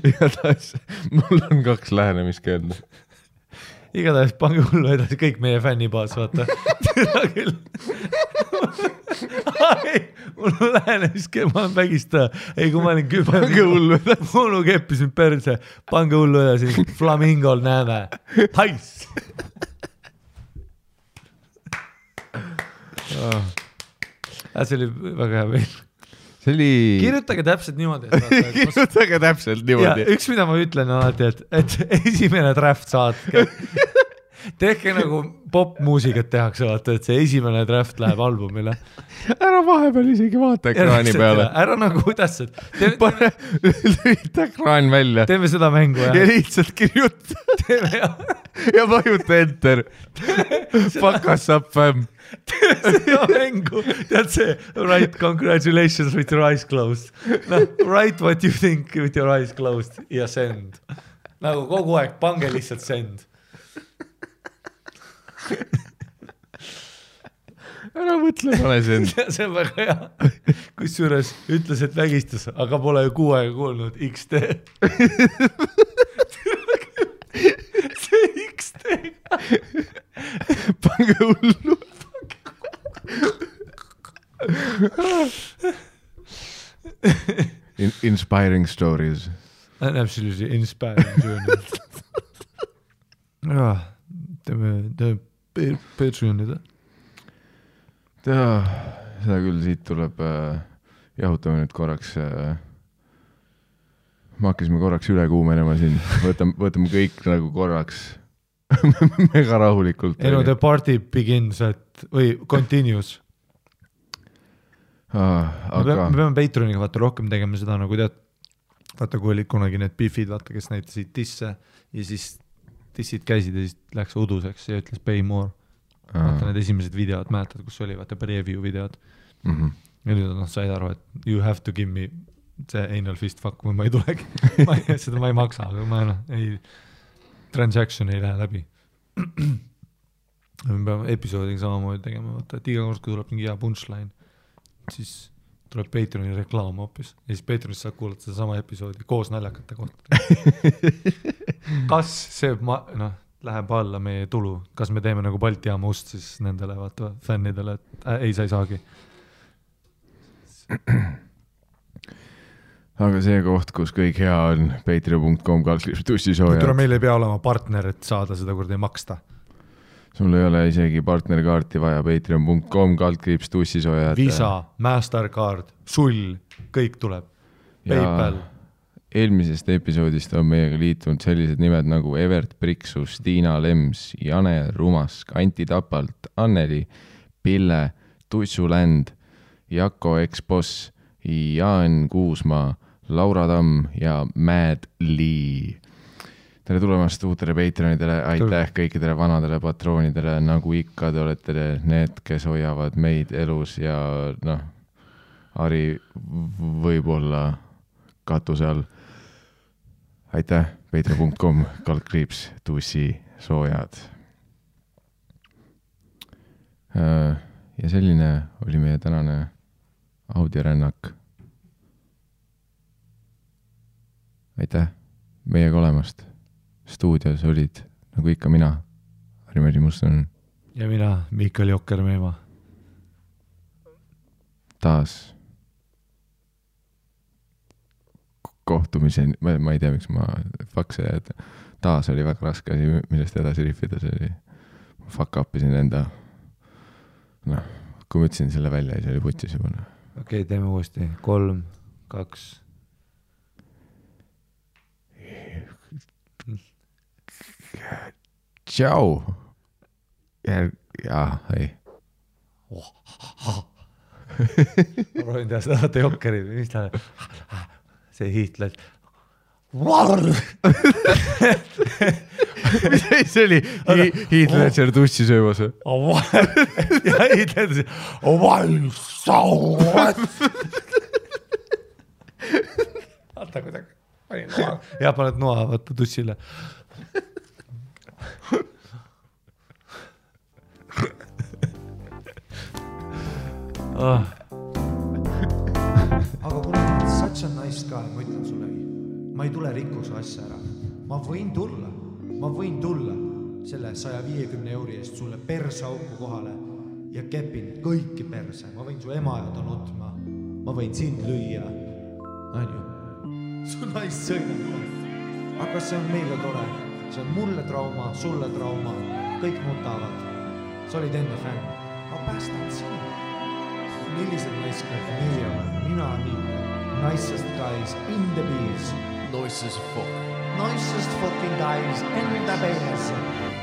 Igatahes mul on 2 lähenemiskeelda. Igatahes pange hullu edasi kõik meie fännibaas, vaata. Seda küll. Mul on lähenemiskeeld, ma olen vägistaja. Ei, kui ma olin küba. Pange hullu edasi. Mul keppis mind perse. Pange hullu edasi. Flamingol näeme. Pais! See oli väga hea veel. See oli... Kirjutage täpselt niimoodi. Kirjutage täpselt niimoodi. Ja, üks, mida ma ütlen alati, et esimene draft saatke. Tehke nagu popmuusikat tehakse, vaata, et see esimene draft läheb albumile. Ära vahepeal isegi vaata ekraani peale. Ära nagu kuidas, et... Lühita ekraan välja. Teeme seda mängu, jah. Ja lihtsalt kirjuta. Ja vajuta enter. Fuck us up, fam. Teeme seda mängu. Tead see, write congratulations with your eyes closed. No, write what you think with your eyes closed ja send. Nagu kogu aeg, pange lihtsalt send. ära mõtle, pane see end. See on väga hea. Kusjuures ütles, et vägistas, aga pole ju 6 aega kuulnud XD. See XD. Pange hullu. Inspiring stories. Absolutely inspiring journey. Teeme Patreonida. Seda küll, siit tuleb jahutame nüüd korraks. Me hakkasime korraks üle kuumenema siin. Võtame kõik nagu korraks mega rahulikult. Ei no the party begins või continues. Me peame Patreoniga vaata rohkem tegema seda nagu tead. Vaata kui olid kunagi need Biffid, vaata kes näitasid disse ja siis dissid käisid ja siis läks uduseks ja ütles pay more. Vaata need esimesed videod, mäletad, kus oli vaata preview videod. Ja nüüd said aru, et you have to give me see anal fist fuck või ma ei tulegi. Seda ma ei maksa, aga ma transaction ei lähe läbi. Me peame episoodiga samamoodi tegema, vaata, et iga kord, kui tuleb mingi hea punchline, siis tuleb Patreoni reklaam hoopis ja siis Patreonis saab kuulata seda sama episoodi koos naljakate kohta. Kas see läheb alla meie tulu, kas me teeme nagu Balti jaama ust siis nendele vaata fännidele, et ei, sa ei saagi. Aga see koht, kus kõik hea on, patreon.com/tussisoojad. Tule meil ei pea olema partner, et saada seda kord ei maksta. Sul ei ole isegi partnerkaarti vaja, patreon.com/tussisoojad. Visa, Mastercard, Sull, kõik tuleb. PayPal. Eelmisest episoodist on meiega liitunud sellised nimed nagu Evert Priksus, Tiina Lems, Jane Rumask, Anti Tapalt, Anneli, Pille, Tussuländ, Jako X-Boss, Jaan Kuusmaa, Laura Tamm ja Mad Lee. Tere tulemast uutele Patreonidele, aitäh kõikidele vanadele patroonidele, nagu ikka te olete need, kes hoiavad meid elus ja Ari võib-olla katuse all. Aitäh, patreon.com/tussisoojad. Ja selline oli meie tänane audiorännak. Aitäh meiega olemast. Stuudios olid, nagu ikka mina, Harri-Meri Muston. Ja mina, Mikael Jokker-Meema. Taas kohtumiseni, ma ei tea, miks ma fakse, et taas oli väga raske asi, millest edasi riffida, see oli fuck upisin enda, kui ma ütlesin selle välja, siis oli putis juba. Okei, teeme uuesti, 3, 2. Tšau. Jaa, ei. Ma rohin teha seda, vaata Jokkerid, mis ta see hiitled. See oli hiitledžer tussi söömas. Ja hiitledžer. Vaata kuidagi. Ja paned noa vaata tussile. Aga kuna ma olen such a nice guy, ma ütlen sulle, ma ei tule rikkuse asja ära. Ma võin tulla selle 150 euri eest sulle persauku kohale ja kepin kõiki perse. Ma võin su ema ja ta nutma. Ma võin sind lüüa. Su naist sõidab. Aga see on meile tore. See on mulle trauma, sulle trauma. Kõik nutavad. Sa olid enne fänn. Ma päästan sinu. Millised naiskad meie olen? Mina nii. Nicest guys in the bees. Nicest fuck. Nicest fucking guys in the bees.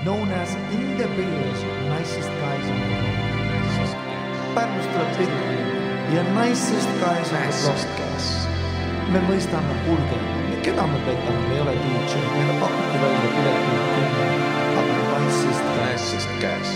Known as in the bees. Nicest guys in the bees. Pärnust tuleb tihti. Ja nicest guys in the bees. Me mõistame kulge. Keda me petame? Me ei ole DJ. Meile pakuti välja pileti 10. Aga nicest guys.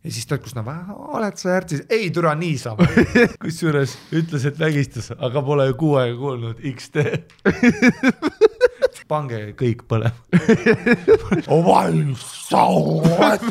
ja siis ta, kus oled sa järgis, ei türa niisama. Kusjuures ütles, et vägistas, aga pole ju 6 aega kuulnud XD. Pange kõik põlema. Oval sa oled.